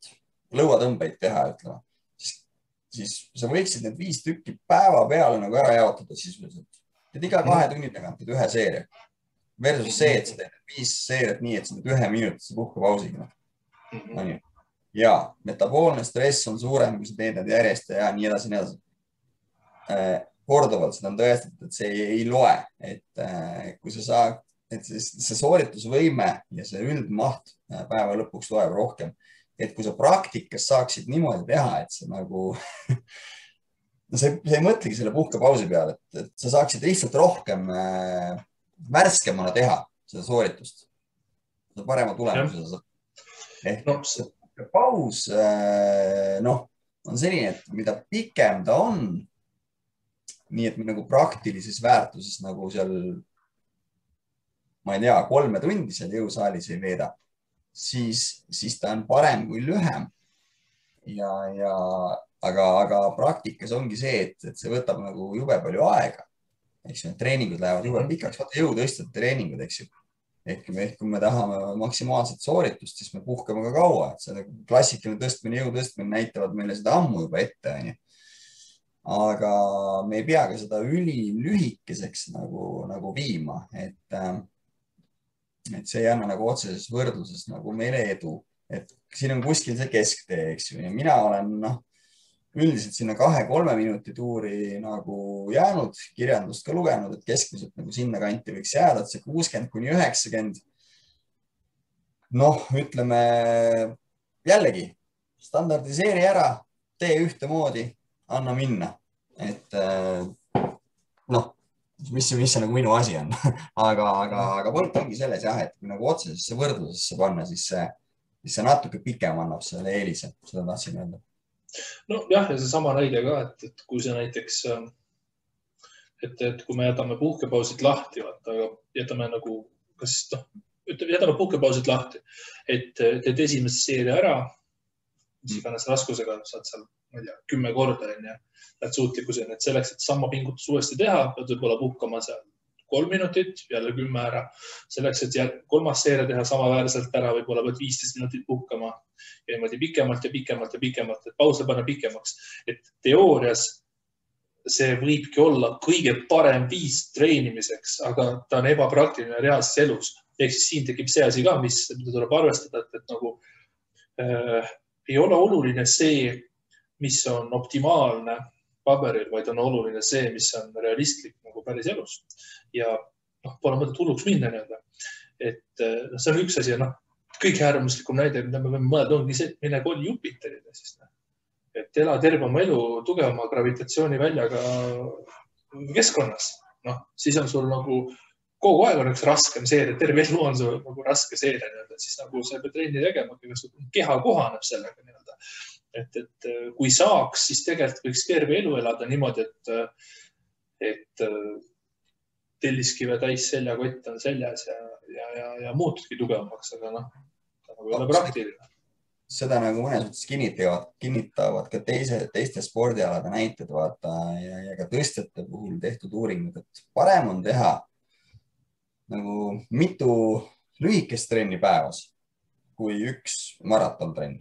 lõuatõmbeid teha, ütleme, siis sa võiksid need 5 tükki päeva peale nagu ära jaotada sisuliselt. Et iga 2 tunni tagant teed 1 seeria. Versus see, et sa teed 5 seeriat nii, et sa teed 1 minutise puhkepausiga. Ja metaboolne stress on suurem, kui sa teed need järjest ja nii edasi, nii edasi. Korduvalt seda on tõestatud, et see ei loe, et kui sa saad, et see sooritusvõime ja see üldmaht päeva lõpuks loeb rohkem. Et kui sa praktikas saaksid niimoodi teha, et sa nagu, sa ei mõtlegi selle puhkepausi peale, et sa saaksid lihtsalt rohkem värskemana teha seda sooritust. Seda parema tulemuse sa saad. Ehk paus on selline, et mida pikem ta on, nii et me nagu praktilises väärtuses nagu seal, ma ei tea, 3 tundi seal jõusaalis ei veeda, siis ta on parem kui lühem. Aga praktikas ongi see, et see võtab nagu jube palju aega. Eks ju, treeningud lähevad jube pikaks, vaata jõutõstjate treeningud, eks ju. Ehk kui me tahame maksimaalset sooritust, siis me puhkame ka kaua. See klassikaline tõstmine, jõutõstmine näitavad meile seda ammu juba ette. aga me ei pea ka seda ülilühikeseks nagu viima, et see ei anna nagu otseses võrdluses nagu meile edu, et siin on kuskil see kesktee, eks ju, ja mina olen üldiselt sinna 2-3 minuti tuuri nagu jäänud, kirjandust ka lugenud, et keskmiselt nagu sinna kanti võiks jääda, et see 60-90. Noh, ütleme jällegi standardiseeri ära, tee ühtemoodi, anna minna, et noh, mis see nagu minu asi on, aga point ongi selles jah, et kui nagu otsesesse võrdlusesse panna, siis see natuke pikem annab selle eelise, seda tahtsin öelda. No jah, ja see sama näide ka, et kui see näiteks, et kui me jätame puhkepausid lahti, aga jätame nagu, jätame puhkepausid lahti, et teed esimese seeria ära, mis iganes raskusega saad seal, ma ei tea, 10 korda ja lähed suutlikkuseni, et selleks, et sama pingutus uuesti teha, pead võib-olla puhkama seal 3 minutit, jälle 10 ära. Selleks, et kolmas seeria teha samaväärselt ära, võib-olla pead 15 minutit puhkama ja niimoodi pikemalt, et pause panna pikemaks. Et teoorias see võibki olla kõige parem viis treenimiseks, aga ta on ebapraktiline reaalses elus. Ehk siis siin tekib see asi ka, mida tuleb arvestada, et nagu ei ole oluline see, mis on optimaalne paberil, vaid on oluline see, mis on realistlik nagu päris elus. Ja pole mõtet hulluks minna nii-öelda. Et see on üks asi ja kõige äärmuslikum näide, mida me võime mõelda, ongi see, et mine koli Jupiterile. Et ela terve oma elu tugevama gravitatsiooniväljaga keskkonnas. Siis on sul nagu kogu aeg on üks raskem seeria, terve elu on sul nagu raske seeria. Siis nagu sa pead trenni tegema, keha kohaneb sellega nii-öelda. Et kui saaks, siis tegelikult võiks terve elu elada niimoodi, et telliskive täis seljakott on seljas ja muutudki tugevamaks, aga nagu ei ole praktiline. Seda nagu mõnes mõttes kinnitavad ka teiste spordialade näited vaata ja ka tõstjate puhul tehtud uuringud, et parem on teha nagu mitu lühikest trenni päevas kui üks maratontrenn.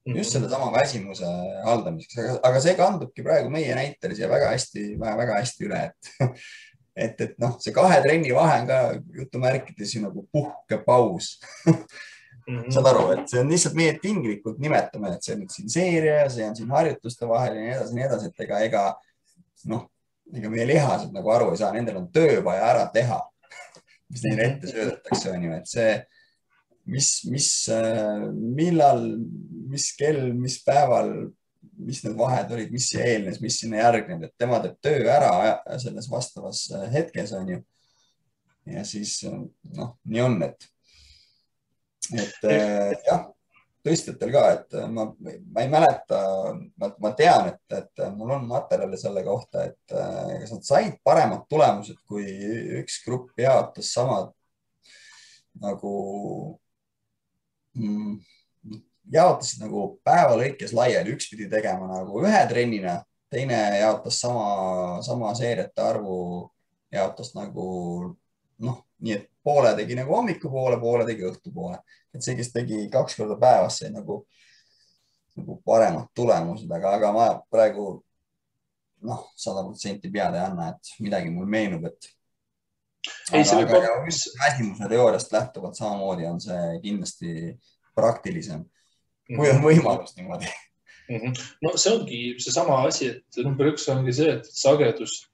Just selle sama väsimuse haldamiseks, aga see kandubki praegu meie näitelis ja väga hästi üle, et see 2 trenni vahe on ka jutumärkides nagu puhkepaus. Saad aru, et see on lihtsalt meie tinglikult nimetame, et see on siin seeria, see on siin harjutuste vahel ja nii edasi, et ega meie lihased nagu aru ei saa, nendel on töö vaja ära teha, mis neile ette söödetakse, on ju, et see millal, mis kell, mis päeval, mis need vahed olid, mis eelnes, mis sinna järgnenud, et tema teeb töö ära selles vastavas hetkes, on ju. Ja siis, nii on, et jah, tõstjatel ka, et ma ei mäleta, ma tean, et mul on materjali selle kohta, et kas nad said paremad tulemused, kui üks grupp jaotas samad nagu jaotasid nagu päeva lõikes laiali, üks pidi tegema nagu 1 trennina, teine jaotas sama seeriate arvu, jaotas nagu nii, et poole tegi nagu hommikupoole, poole tegi õhtupoole. Et see, kes tegi 2 korda päevas, sai nagu paremad tulemused, aga ma praegu 100% pead ei anna, et midagi mul meenub, et aga väsimuse teooriast lähtuvalt samamoodi on see kindlasti praktilisem, kui on võimalus niimoodi. No see ongi see sama asi, et number 1 ongi see, et sagedus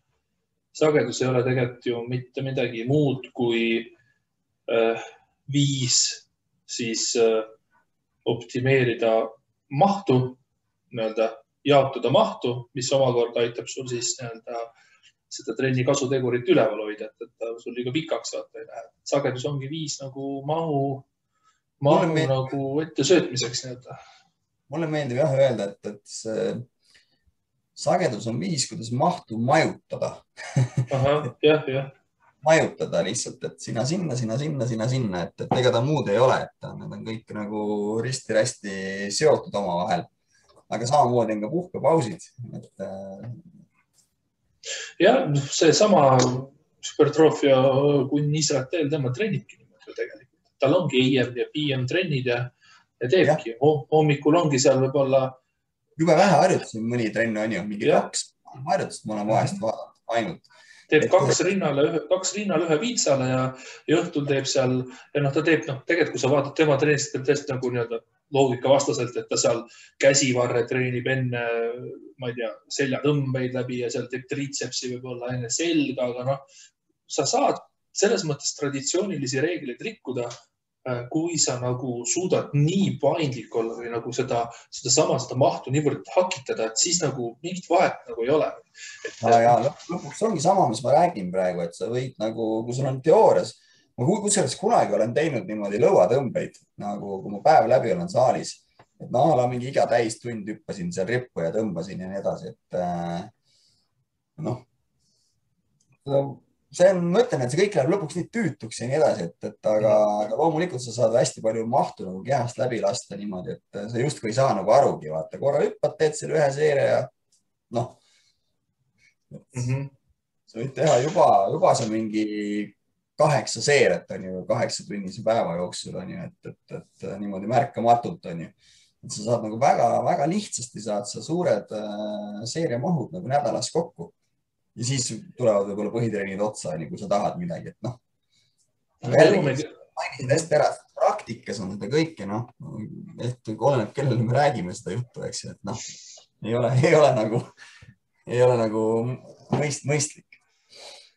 ei ole tegelikult ju mitte midagi muud kui viis siis optimeerida mahtu, jaotada mahtu, mis omakorda aitab sul siis seda trenni kasutegurit üleval hoida, et sul liiga pikaks vaata ei lähe. Sagedus ongi viis nagu mahu nagu ette söötmiseks. Mulle meeldib jah öelda, et see sagedus on viis, kuidas mahtu majutada. Jah. Majutada lihtsalt, et sina sinna, et ega ta muud ei ole, et need on kõik nagu risti-rästi seotud oma vahel. Aga samamoodi on ka puhkepausid, et jah, see sama supertroofia kunn Israel, tema trennibki niimoodi tegelikult. Tal ongi AM ja PM trennid ja teebki. Hommikul ongi seal võib-olla jube vähe harjutusi, mõni trenn on ju, mingi 2 harjutust ma olen vahest vaadanud ainult. Teeb kaks rinnal ühe viitsale ja õhtul teeb seal ja ta teeb, tegelikult kui sa vaatad tema treenist, teeb tõesti nagu nii-öelda loogika vastaselt, et ta seal käsivarre treenib enne, ma ei tea, seljatõmbeid läbi ja seal teeb triitsepsi võib-olla enne selga, aga sa saad selles mõttes traditsioonilisi reegleid rikkuda, kui sa nagu suudad nii paindlik olla või nagu seda mahtu niivõrd hakitada, et siis nagu mingit vahet nagu ei ole. Ja lõpuks ongi sama, mis ma räägin praegu, et sa võid nagu, kui sul on teoorias, ma kusjuures kunagi olen teinud niimoodi lõuatõmbeid, nagu kui ma päev läbi olen saalis, et mingi iga täistund hüppasin seal rippu ja tõmbasin ja nii edasi, et see on, ma ütlen, et see kõik läheb lõpuks nii tüütuks ja nii edasi, aga loomulikult sa saad hästi palju mahtu nagu kehast läbi lasta niimoodi, et sa justkui ei saa nagu arugi, vaata, korra hüppad, teed selle ühe seeria ja sa võid teha juba see mingi 8 seeriat on ju, 8-tunnise päeva jooksul on ju, et niimoodi märkamatult on ju, et sa saad nagu väga lihtsasti saad sa suured seeriamahud nagu nädalas kokku. Ja siis tulevad võib-olla põhitreenid otsa, kui sa tahad midagi, et mainisid hästi ära, praktikas on seda kõike, et oleneb, kellele me räägime seda juttu, eks ju, et ei ole nagu mõistlik.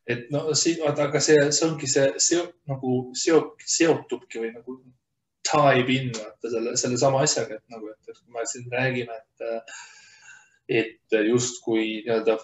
Et aga see ongi see nagu seotubki või nagu dive in selle sama asjaga, et kui me siin räägime, et justkui nii-öelda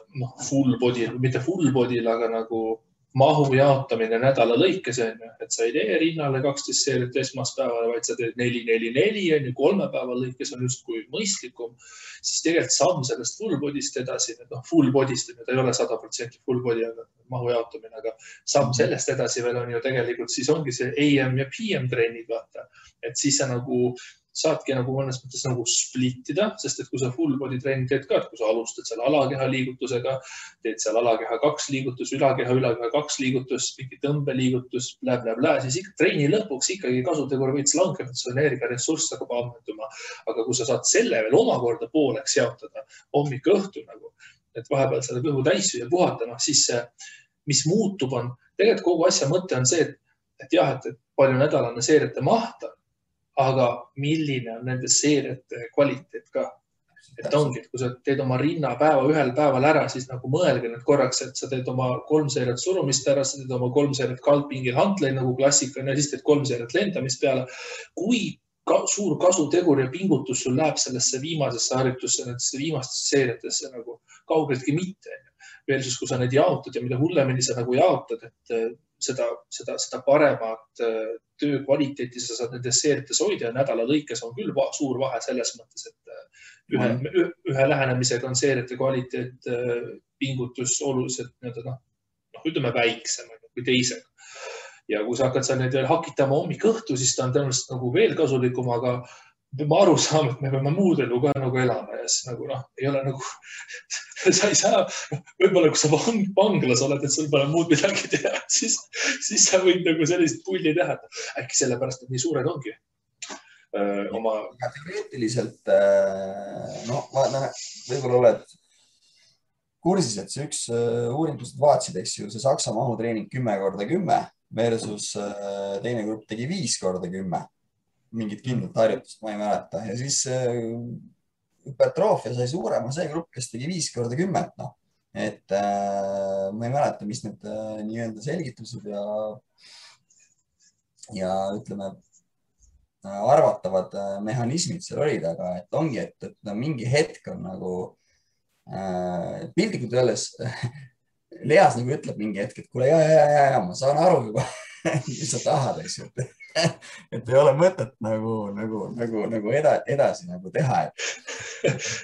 full body, mitte full body'l, aga nagu mahu jaotamine nädala lõikes on ju, et sa ei tee rinnale 12 seeriat esmaspäeval, vaid sa teed 4-4-4 on ju, 3 päeva lõikes on justkui mõistlikum, siis tegelikult samm sellest full body'st edasi, full body'st, ta ei ole 100% full body, aga mahu jaotamine, aga samm sellest edasi veel on ju tegelikult, siis ongi see AM ja PM treenid, vaata, et siis sa nagu saadki nagu mõnes mõttes nagu splittida, sest et kui sa full body treening teed ka, et kui sa alustad seal alakeha liigutusega, teed seal alakeha 2 liigutus, ülakeha 2 liigutus, mingi tõmbeliigutus, siis ikka treeni lõpuks ikkagi kasutegur võiks langeda, see energiaressurss hakkab ammenduma. Aga kui sa saad selle veel omakorda pooleks jaotada hommik-õhtu nagu, et vahepeal selle kõhu täis ja puhata, siis mis muutub on, tegelikult kogu asja mõte on see, et jah, et palju nädalane seeriate maht on, aga milline on nende seeriate kvaliteet ka. Et ongi, et kui sa teed oma rinnapäeva ühel päeval ära, siis nagu mõelge nüüd korraks, et sa teed oma 3 seeriat surumist ära, sa teed oma 3 seeriat kaldpingil hantleid nagu klassika ja siis teed 3 seeriat lendamist peale. Kui suur kasutegur ja pingutus sul läheb sellesse viimasesse harjutusse, nendesse viimastesse seeriatesse nagu kaugeltki mitte. Versus, kui sa need jaotad ja mida hullemini sa nagu jaotad, et seda paremat töö kvaliteeti sa saad nendes seeriates hoida ja nädala lõikes on küll suur vahe selles mõttes, et ühe lähenemisega on seeriate kvaliteet pingutus oluliselt ütleme väiksem kui teisega. Ja kui sa hakkad seal neid veel hakitama hommik-õhtu, siis ta on tõenäoliselt nagu veel kasulikum, aga peame aru saama, et me peame muud elu ka nagu elama ja siis nagu ei ole nagu, sa ei saa, võib-olla kui sa vanglas oled, et sul pole muud midagi teha, siis sa võid nagu sellist pulli teha, äkki sellepärast, et nii suured ongi. Teoreetiliselt, võib-olla oled kursis, et see üks uuringust vaatsid, eks ju, see Saksa mahutreening 10x10 versus teine grupp tegi 5x10. Mingit kindlat harjutust, ma ei mäleta. Ja siis hüpertroofia sai suurema see grupp, kes tegi 5x10. Et ma ei mäleta, mis need nii-öelda selgitused ja ütleme, arvatavad mehhanismid seal olid, aga et ongi, et mingi hetk on nagu pildikult öeldes Leas nagu ütleb mingi hetk, et kuule, ma saan aru juba, mis sa tahad, eks ju. Et ei ole mõtet nagu edasi nagu teha.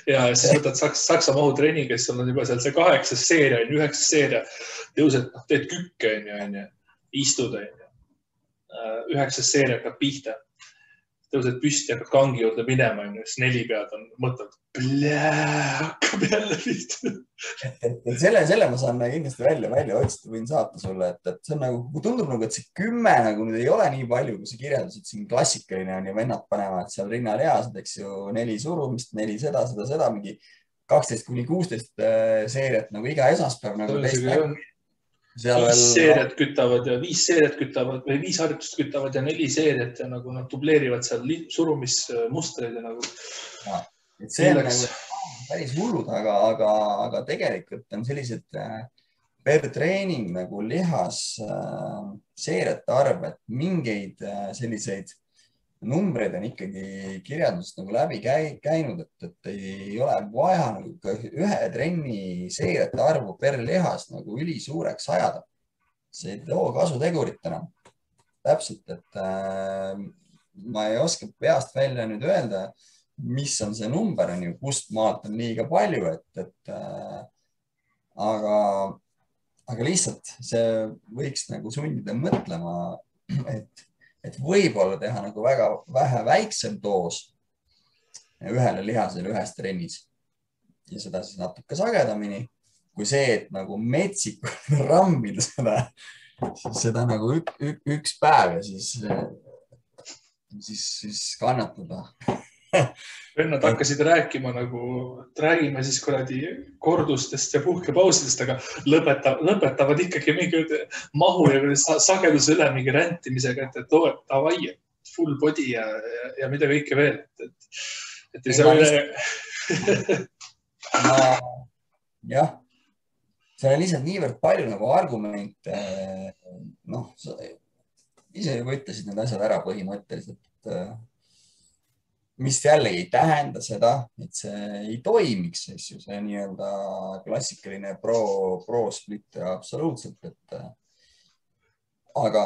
Ja siis võtad Saksa mahutreeni, kes on juba seal see 8 seeria, 9 seeria, tõused, teed kükke, istud, 9 seeria hakkab pihta. Tõused püsti, hakkad kangi juurde minema, siis 4 pead on mõtled, hakkab jälle pihta. Selle ma saan kindlasti välja otsida, võin saata sulle, et see on nagu, tundub nagu, et see 10 nagu nüüd ei ole nii palju, kui sa kirjeldasid siin klassikaline on ja vennad panevad seal rinnal eased, eks ju, 4 surumist, 4 seda, mingi 12-16 seeriat nagu iga esmaspäev nagu teist nägu. Viis seeriat kütavad või 5 harjutust kütavad ja 4 seeriat ja nagu nad dubleerivad seal surumismustreid ja nagu. See on nagu päris hullud, aga tegelikult on sellised per treening nagu lihas seeriate arv, et mingeid selliseid numbreid on ikkagi kirjandusest nagu läbi käinud, et ei ole vaja nagu ühe trenni seeriate arvu per lihas nagu ülisuureks ajada. See ei too kasutegurit enam. Täpselt, et ma ei oska peast välja nüüd öelda, mis on see number, on ju, kust maalt on liiga palju, aga lihtsalt see võiks nagu sundida mõtlema, et võib-olla teha nagu väga vähe väiksem doos ühele lihasele ühes trennis ja seda siis natuke sagedamini kui see, et nagu metsikult rammida seda nagu üks päev ja siis kannatada. Vennad hakkasid rääkima nagu, et räägime siis kuradi kordustest ja puhkepausidest, aga lõpetavad ikkagi mingi mahu ja sageduse üle mingi räntimisega, et davai, full body ja mida kõike veel. Et ei saa üle. Jah, see on lihtsalt niivõrd palju nagu argumente. Noh, ise juba ütlesid need asjad ära põhimõtteliselt, mis jällegi ei tähenda seda, et see ei toimiks, see nii-öelda klassikaline pro-split absoluutselt, aga.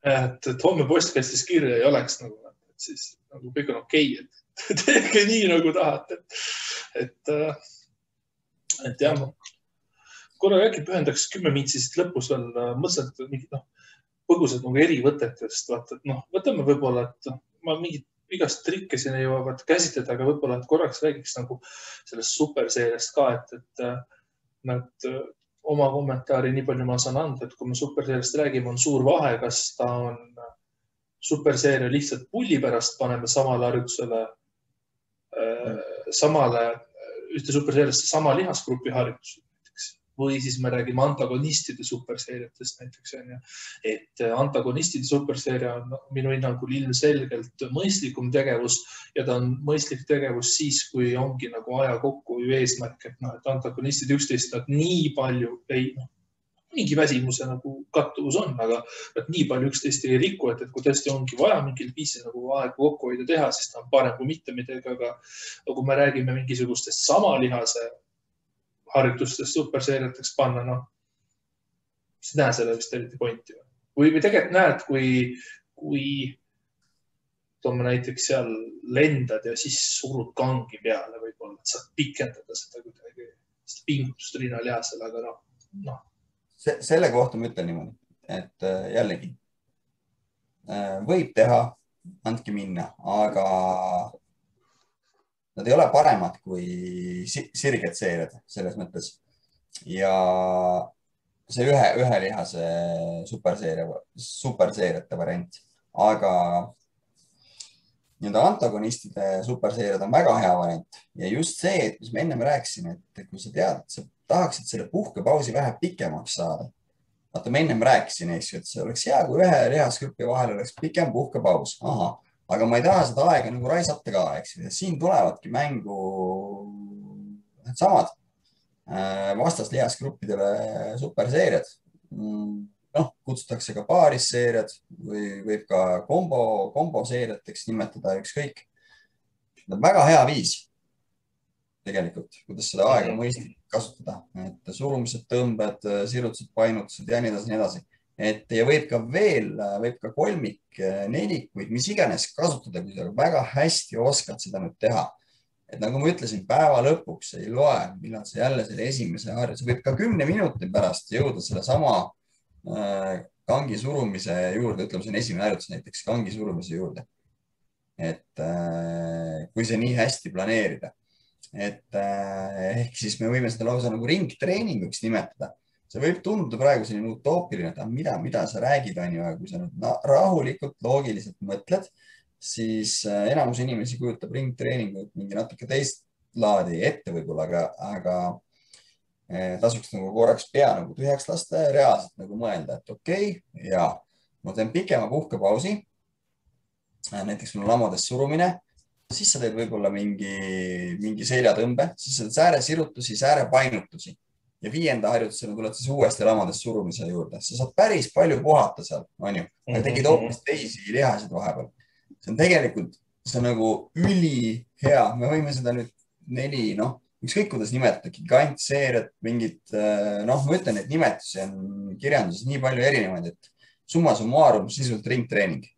Et homme postkastis kirja ei oleks nagu, et siis nagu kõik on okei, et tehke nii nagu tahate. Et jah, korra äkki pühendaks 10 mintsi siit lõpus veel mõtlesid mingid põgusad nagu erivõtetest, vaata, et võtame võib-olla, et ma mingid igast trikke siin ei jõuavad käsitleda, aga võib-olla korraks räägiks nagu sellest superseeriast ka, et nad oma kommentaari nii palju ma saan anda, et kui me superseeriast räägime, on suur vahe, kas ta on superseeria lihtsalt pulli pärast, paneme samale harjutusele, ühte superseeriasse sama lihasgrupi harjutus. Või siis me räägime antagonistide superseeriatest näiteks. Et antagonistide superseeria on minu hinnangul ilmselgelt mõistlikum tegevus ja ta on mõistlik tegevus siis, kui ongi nagu aja kokku eesmärk, et antagonistid üksteist nad nii palju mingi väsimuse nagu kattuvus on, aga nad nii palju üksteist ei riku, et kui tõesti ongi vaja mingil viisil nagu aega kokku hoida teha, siis ta on parem kui mitte midagi, aga kui me räägime mingisugustest sama lihase harjutustest superseeriateks panna, siis näe selle vist eriti pointi. Või tegelikult näed, kui toome näiteks seal lendad ja siis surud kangi peale võib-olla, et saad pikendada seda kuidagi pingutust rinnalihasele, aga Selle kohta ma ütlen niimoodi, et jällegi võib teha, andke minna, aga nad ei ole paremad kui sirged seeriad selles mõttes. Ja see ühe lihase superseeriate variant, aga nii-öelda antagonistide superseeriad on väga hea variant. Ja just see, et mis me ennem rääkisime, et kui sa tead, et sa tahaksid selle puhkepausi vähe pikemaks saada. Vaata, ma ennem rääkisin, et see oleks hea, kui ühe lihasgrupi vahel oleks pikem puhkepaus. Aga ma ei taha seda aega nagu raisata ka, eks. Siin tulevadki mängu samad vastaslihasgruppidele superseeriad. Kutsutakse ka paarisseeriad või võib ka komboseeriateks nimetada ükskõik. Väga hea viis tegelikult, kuidas seda aega mõistlik kasutada. Et surumised, tõmbed, sirutused, painutused ja nii edasi. Ja võib ka kolmik, nelikuid, mis iganes kasutada, kui sa väga hästi oskad seda nüüd teha. Et nagu ma ütlesin, päeva lõpuks ei loe, millal sa jälle selle esimese harjutuse. Võib ka 10 minuti pärast jõuda selle sama kangi surumise juurde, ütleme, see on esimene harjutus näiteks kangi surumise juurde. Et kui see nii hästi planeerida, ehk siis me võime seda lausa nagu ringtreeninguks nimetada. See võib tunduda praegu selline utoopiline, et mida sa räägid, aga kui sa nüüd rahulikult, loogiliselt mõtled, siis enamus inimesi kujutab ringtreeningut mingi natuke laadi ette võib-olla, aga tasuks nagu korraks pea nagu tühjaks lasta ja reaalselt nagu mõelda, et okei, ja ma teen pikema puhkepausi. Näiteks mul lamades surumine, siis sa teed võib-olla mingi seljatõmbe, siis sa teed sääresirutusi, säärepainutusi ja 5. harjutusena tuled siis uuesti lamades surumise juurde. Sa saad päris palju puhata seal, on ju, aga tegid hoopis teisi lihasid vahepeal. See on tegelikult, see on nagu ülihea. Me võime seda nüüd 4, ükskõik kuidas nimetada, gigantseeriat, mingid, ma ütlen, et nimetusi on kirjanduses nii palju erinevaid, et summa summarum sisult ringtreening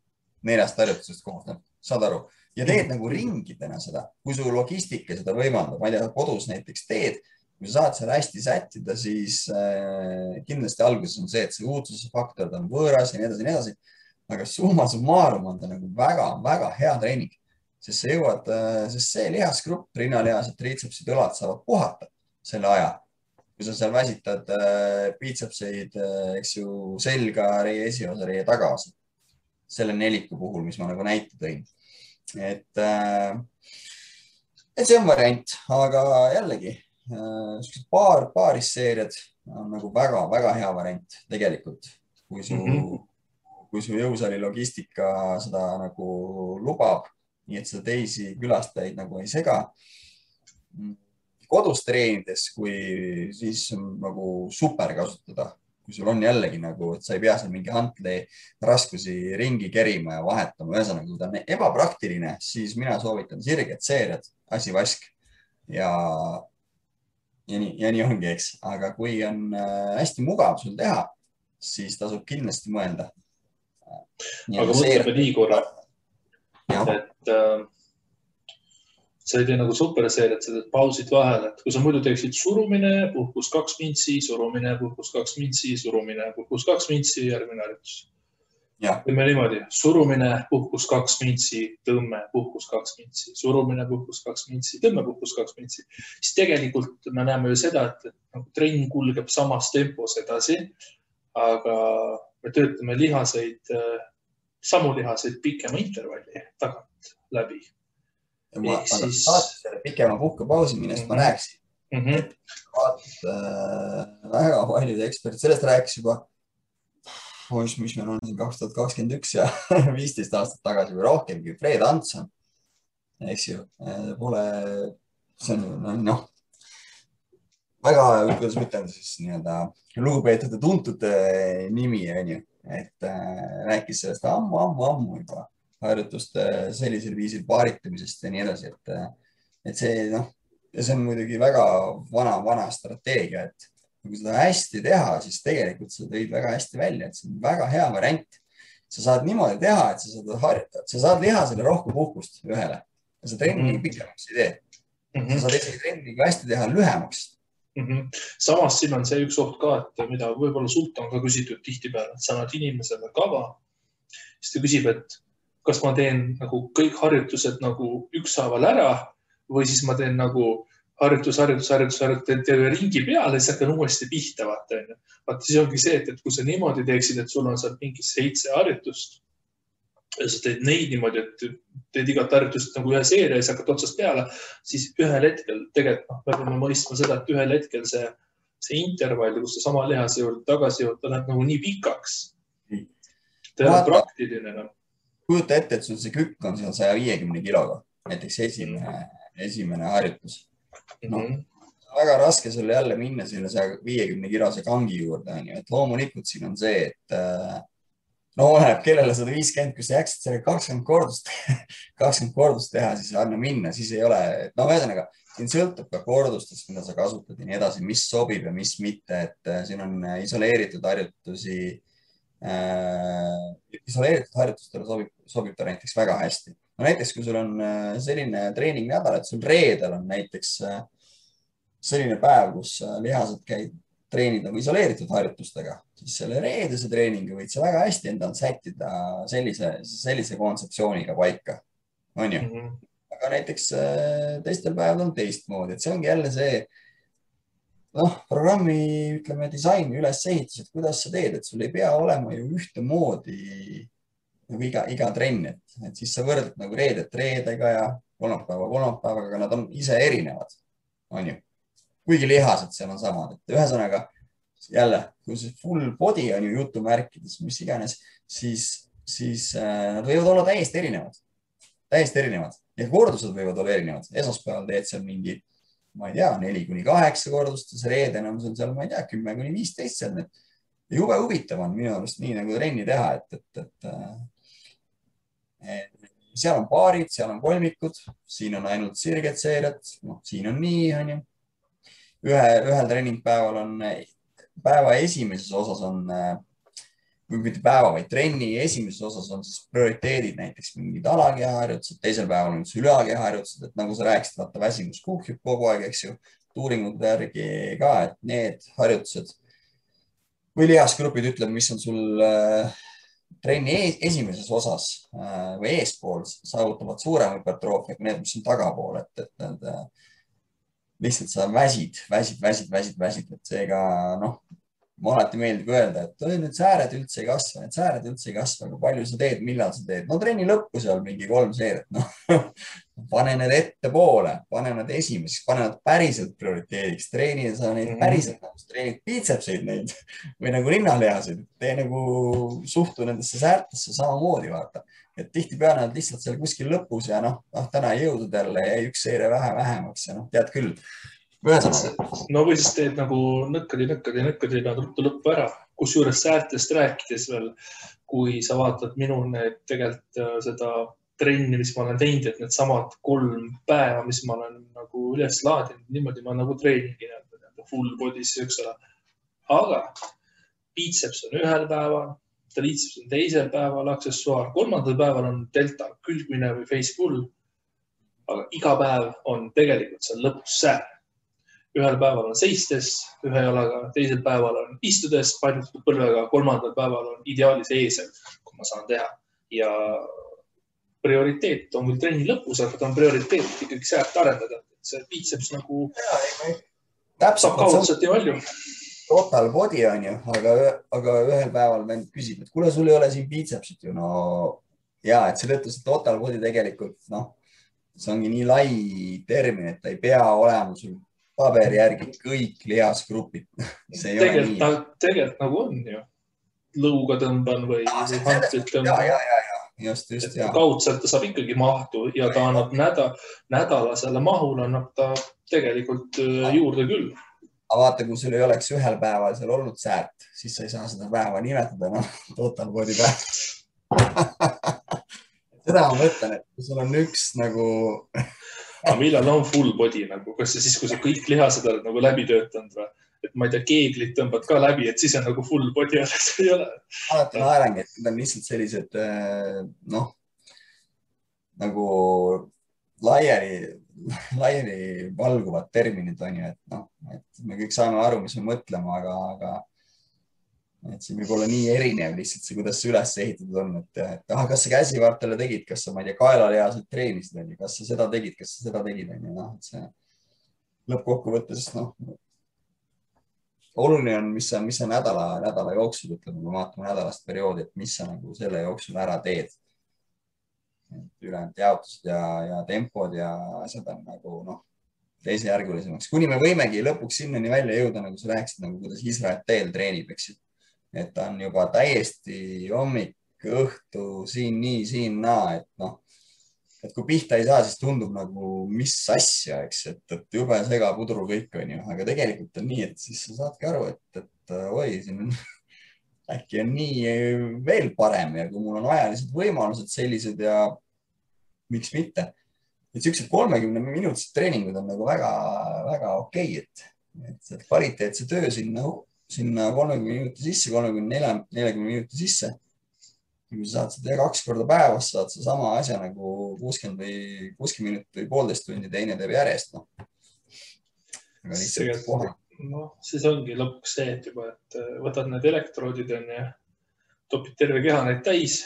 4 harjutusest koosneb, saad aru? Ja teed nagu ringidena seda, kui su logistika seda võimaldab, ma ei tea, kodus näiteks teed, kui sa saad seal hästi sättida, siis kindlasti alguses on see, et see uudsuse faktor on võõras ja nii edasi, nii edasi. Aga summa summarum on ta nagu väga hea treening, sest sa jõuad, sest see lihasgrupp, rinnalihased, triitsepsid, õlad saavad puhata selle aja. Kui sa seal väsitad biitsepseid, eks ju, selga, reie esiosa, reie tagaosa. Selle 4 puhul, mis ma nagu näite tõin. Et see on variant, aga jällegi, paarisseeriad on nagu väga hea variant tegelikult, kui su jõusaali logistika seda nagu lubab, nii et seda teisi külastajaid nagu ei sega. Kodus treenides, kui siis on nagu super kasutada, kui sul on jällegi nagu, et sa ei pea seal mingi hantli raskusi ringi kerima ja vahetama. Ühesõnaga, kui ta on ebapraktiline, siis mina soovitan sirged seeriad, asi vask ja nii ongi, eks. Aga kui on hästi mugav sul teha, siis tasub kindlasti mõelda. Aga mõtleme nii korra, et sa ei tee nagu superseeriat, sa teed pausid vahel, et kui sa muidu teeksid surumine, puhkus 2 mintsi, surumine, puhkus 2 mintsi, surumine, puhkus 2 mintsi, järgmine harjutus. Teeme niimoodi, surumine, puhkus 2 mintsi, tõmme, puhkus 2 mintsi, surumine, puhkus 2 mintsi, tõmme, puhkus 2 mintsi. Siis tegelikult me näeme ju seda, et nagu trenn kulgeb samas tempos edasi, aga me töötame samu lihaseid pikema intervalli tagant läbi. Ma saatis selle pikema puhkepausi, millest ma rääkisin. Et väga paljud eksperdid sellest rääkis juba, mis meil on 2021 ja 15 aastat tagasi või rohkemgi. Fred Hanson, eks ju, see on väga, kuidas ma ütlen siis nii-öelda lugupeetud ja tuntud nimi, on ju, et rääkis sellest ammu juba harjutuste sellisel viisil paaritamisest ja nii edasi, et see, ja see on muidugi väga vana strateegia, et kui seda hästi teha, siis tegelikult sa tõid väga hästi välja, et see on väga hea variant. Sa saad niimoodi teha, et sa saad lihasele rohkem puhkust ühele ja sa trenni pikemaks ei tee. Sa saad isegi trenni hästi teha lühemaks. Samas siin on see üks oht ka, et mida võib-olla sult on ka küsitud tihtipeale, et sa annad inimesele kava, siis ta küsib, et kas ma teen nagu kõik harjutused nagu ükshaaval ära või siis ma teen nagu harjutus, teen ringi peale ja siis hakkan uuesti pihta, vaata. Vaata, siis ongi see, et kui sa niimoodi teeksid, et sul on seal mingi 7 harjutust ja sa teed neid niimoodi, et teed igat harjutust nagu ühe seeria ja siis hakkad otsast peale, siis ühel hetkel tegelikult me peame mõistma seda, et ühel hetkel see intervall, kus sa sama lihase juurde tagasi jõud, ta läheb nagu nii pikaks. Ta ei ole praktiline. Kujuta ette, et sul see kükk on seal 150 kiloga, näiteks esimene harjutus. Väga raske sul jälle minna selle 150 kilose kangi juurde, et loomulikult siin on see, et oleneb kellele 150, kui sa jääksid selle 20 kordust teha, siis anna minna, siis ei ole, ühesõnaga, siin sõltub ka kordustest, mida sa kasutad ja nii edasi, mis sobib ja mis mitte, et siin on isoleeritud harjutustele sobib ta näiteks väga hästi. Näiteks, kui sul on selline treeningnädal, et sul reedel on näiteks selline päev, kus lihased käid treenid nagu isoleeritud harjutustega, siis selle reedese treeningi võid sa väga hästi endal sättida sellise kontseptsiooniga paika, on ju. Aga näiteks teistel päeval on teistmoodi, et see ongi jälle see programmi, ütleme, disaini ülesehitus, et kuidas sa teed, et sul ei pea olema ju ühtemoodi nagu iga trenn, et siis sa võrdled nagu reedet reedega ja kolmapäevaga, aga nad on ise erinevad, on ju. Kuigi lihased seal on samad, et ühesõnaga jälle, kui see full body on ju jutumärkides, mis iganes, siis nad võivad olla täiesti erinevad ja kordused võivad olla erinevad. Esmaspäeval teed seal mingi, ma ei tea, 4-8 kordust ja see reeden on seal, ma ei tea, 10-15 seal. Jube huvitav on minu arust nii nagu trenni teha, et seal on paarid, seal on kolmikud, siin on ainult sirged seeriad, siin on nii, on ju. Ühel treeningpäeval on, päeva esimeses osas on, või mitte päeva, vaid trenni esimeses osas on siis prioriteedid, näiteks mingid alakehaharjutused, teisel päeval on ülekehaharjutused, et nagu sa rääkisid, vaata väsimus kuhjub kogu aeg, eks ju, uuringute järgi ka, et need harjutused või lihasgrupid ütleb, mis on sul trenni esimeses osas või eespool saavutavad suurem hüpertroofia kui need, mis on tagapool, et need lihtsalt sa väsid, et seega, noh, ma alati meeldib öelda, et need sääred üldse ei kasva, aga palju sa teed, millal sa teed. No trenni lõppu seal mingi 3 seeriat, noh, pane need ettepoole, pane need esimeseks, pane need päriselt prioriteediks, treeni sa neid päriselt, treenid piitsepseid neid või nagu rinnalihaseid, tee nagu suhtu nendesse säärtesse samamoodi, vaata. Et tihtipeale nad lihtsalt seal kuskil lõpus ja noh, täna ei jõudnud jälle ja üks seire vähemaks ja noh, tead küll. No või siis teed nagu nõkkadi nad ruttu lõppu ära, kusjuures säärtest rääkides veel, kui sa vaatad minu need tegelikult seda trenni, mis ma olen teinud, et need samad 3 päeva, mis ma olen nagu üles laadinud, niimoodi ma nagu treeningi full body's, eks ole. Aga biceps on ühel päeval, triceps on teisel päeval, aksessuaar, 3. päeval on delta külgmine või face pull. Aga iga päev on tegelikult seal lõpus säär. Ühel päeval on seistes, ühe jalaga, teisel päeval on istudes, painutatud põlvega, 3. päeval on ideaalis eesel, kui ma saan teha. Ja prioriteet on küll trenni lõpus, aga ta on prioriteet ikkagi säärt arendada. See biceps nagu saab kaudselt nii palju. Total body on ju, aga ühel päeval vend küsib, et kuule, sul ei ole siin bicepsit ju. No ja, et selle ütles, et total body tegelikult, noh, see ongi nii lai termin, et ta ei pea olema sul paberi järgi kõik lihasgrupid. Tegelikult nagu on ju. Lõuga tõmban või hantlit tõmban. Just, kaudselt ta saab ikkagi mahtu ja ta annab nädalasele mahul annab ta tegelikult juurde küll. Aga vaata, kui sul ei oleks ühel päeval seal olnud säärt, siis sa ei saa seda päeva nimetada, total body päev. Seda ma mõtlen, et kui sul on üks nagu... Aga millal on full body nagu? Kas see siis, kui sa kõik lihased oled nagu läbi töötanud või? Et ma ei tea, keeglit tõmbad ka läbi, et siis on nagu full body, aga see ei ole. Alati naerangi, et need on lihtsalt sellised, noh, nagu laiali valguvad terminid on ju, et noh, et me kõik saame aru, mis me mõtlema, aga et siin võib olla nii erinev lihtsalt see, kuidas see üles ehitatud on, et kas sa käsivartele tegid, kas sa, ma ei tea, kaelalihaselt treenisid, kas sa seda tegid, noh, et see lõppkokkuvõttes, noh, oluline on, mis sa nädala jooksul, ütleme, kui vaatame nädalast perioodi, et mis sa nagu selle jooksul ära teed. Ülejäänud jaotused ja tempod ja asjad on nagu, noh, teisejärgulisemaks. Kuni me võimegi lõpuks sinnani välja jõuda, nagu sa rääkisid, nagu kuidas Israel teel treenib, eks ju. Et ta on juba täiesti hommik, õhtu, siin nii, siin naa, et noh, et kui pihta ei saa, siis tundub nagu mis asja, eks, et jube segapudru kõik on ju, aga tegelikult on nii, et siis sa saadki aru, et oi, siin äkki on nii veel parem ja kui mul on ajalised võimalused sellised ja miks mitte. Et sellised 30-minutised treeningud on nagu väga okei, et kvaliteetse töö sinna 30 minuti sisse, 30-40 minuti sisse. Kui sa saad seda 2 korda päevas, saad sa sama asja nagu 60 minutit või 1,5 tundi, teine teeb järjest. Siis ongi lõpuks see, et juba, et võtad need elektroodid ja topid terve keha neid täis,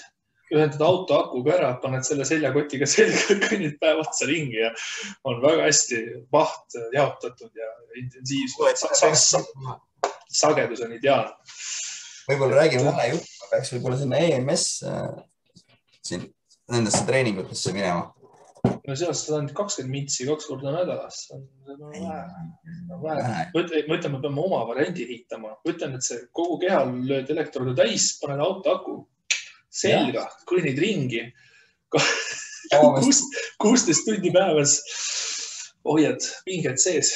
ühendad auto akuga ära, paned selle seljakotiga selga, kõnnid päev otsa ringi ja on väga hästi maht jaotatud ja intensiivsus. Sagedus on ideaalne. Võib-olla räägime vähe juttu, ma peaks võib-olla sinna EMS siin nendesse treeningutesse minema. no sealt saad ainult 20 mintsi 2 korda nädalas. vähe. Ma ütlen, me peame oma variandi ehitama. Ma ütlen, et see kogu kehal lööd elektrodu täis, paned auto aku selga, kõnnid ringi. 16 tundi päevas hoiad pinged sees.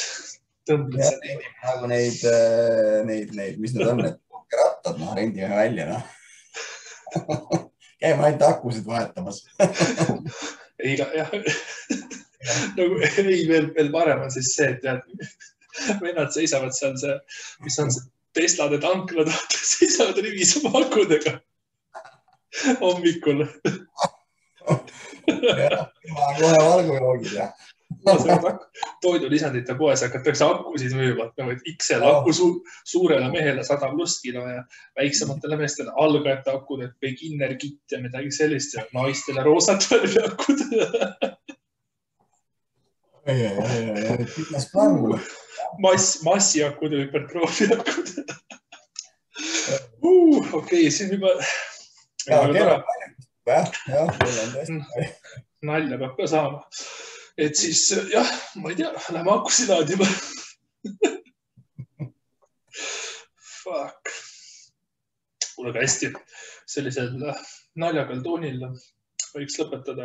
Tõmbled seda. Nagu neid, mis need on, need rattad, rendime välja, Käime ainult akusid vahetamas. jah. Nagu veel parem on siis see, et tead, vennad seisavad seal see, mis on see Teslade tanklad, seisavad rivis oma akudega hommikul. Kohe valgujoogid, toidulisandite poes hakatakse akusid müüma, XL aku suurele mehele 100+ kilo ja väiksematele meestele algajate akud, et beginner kit ja midagi sellist ja naistele roosat värvi akud. Pikas plaan mulle. Massiakud ja hüpertroofiakud. Okei, siin juba... Nalja peab ka saama. Et siis, jah, ma ei tea, lähme akusid laadima. Fuck. Kuule ka hästi. Sellisel naljakal toonil võiks lõpetada.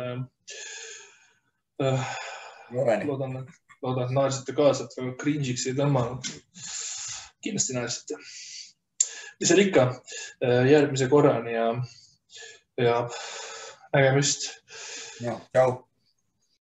Loodan, et naersite kaasa, et väga cringe'iks ei tõmmanud. Kindlasti naersite. Mis seal ikka järgmise korrani ja nägemist. Tšau.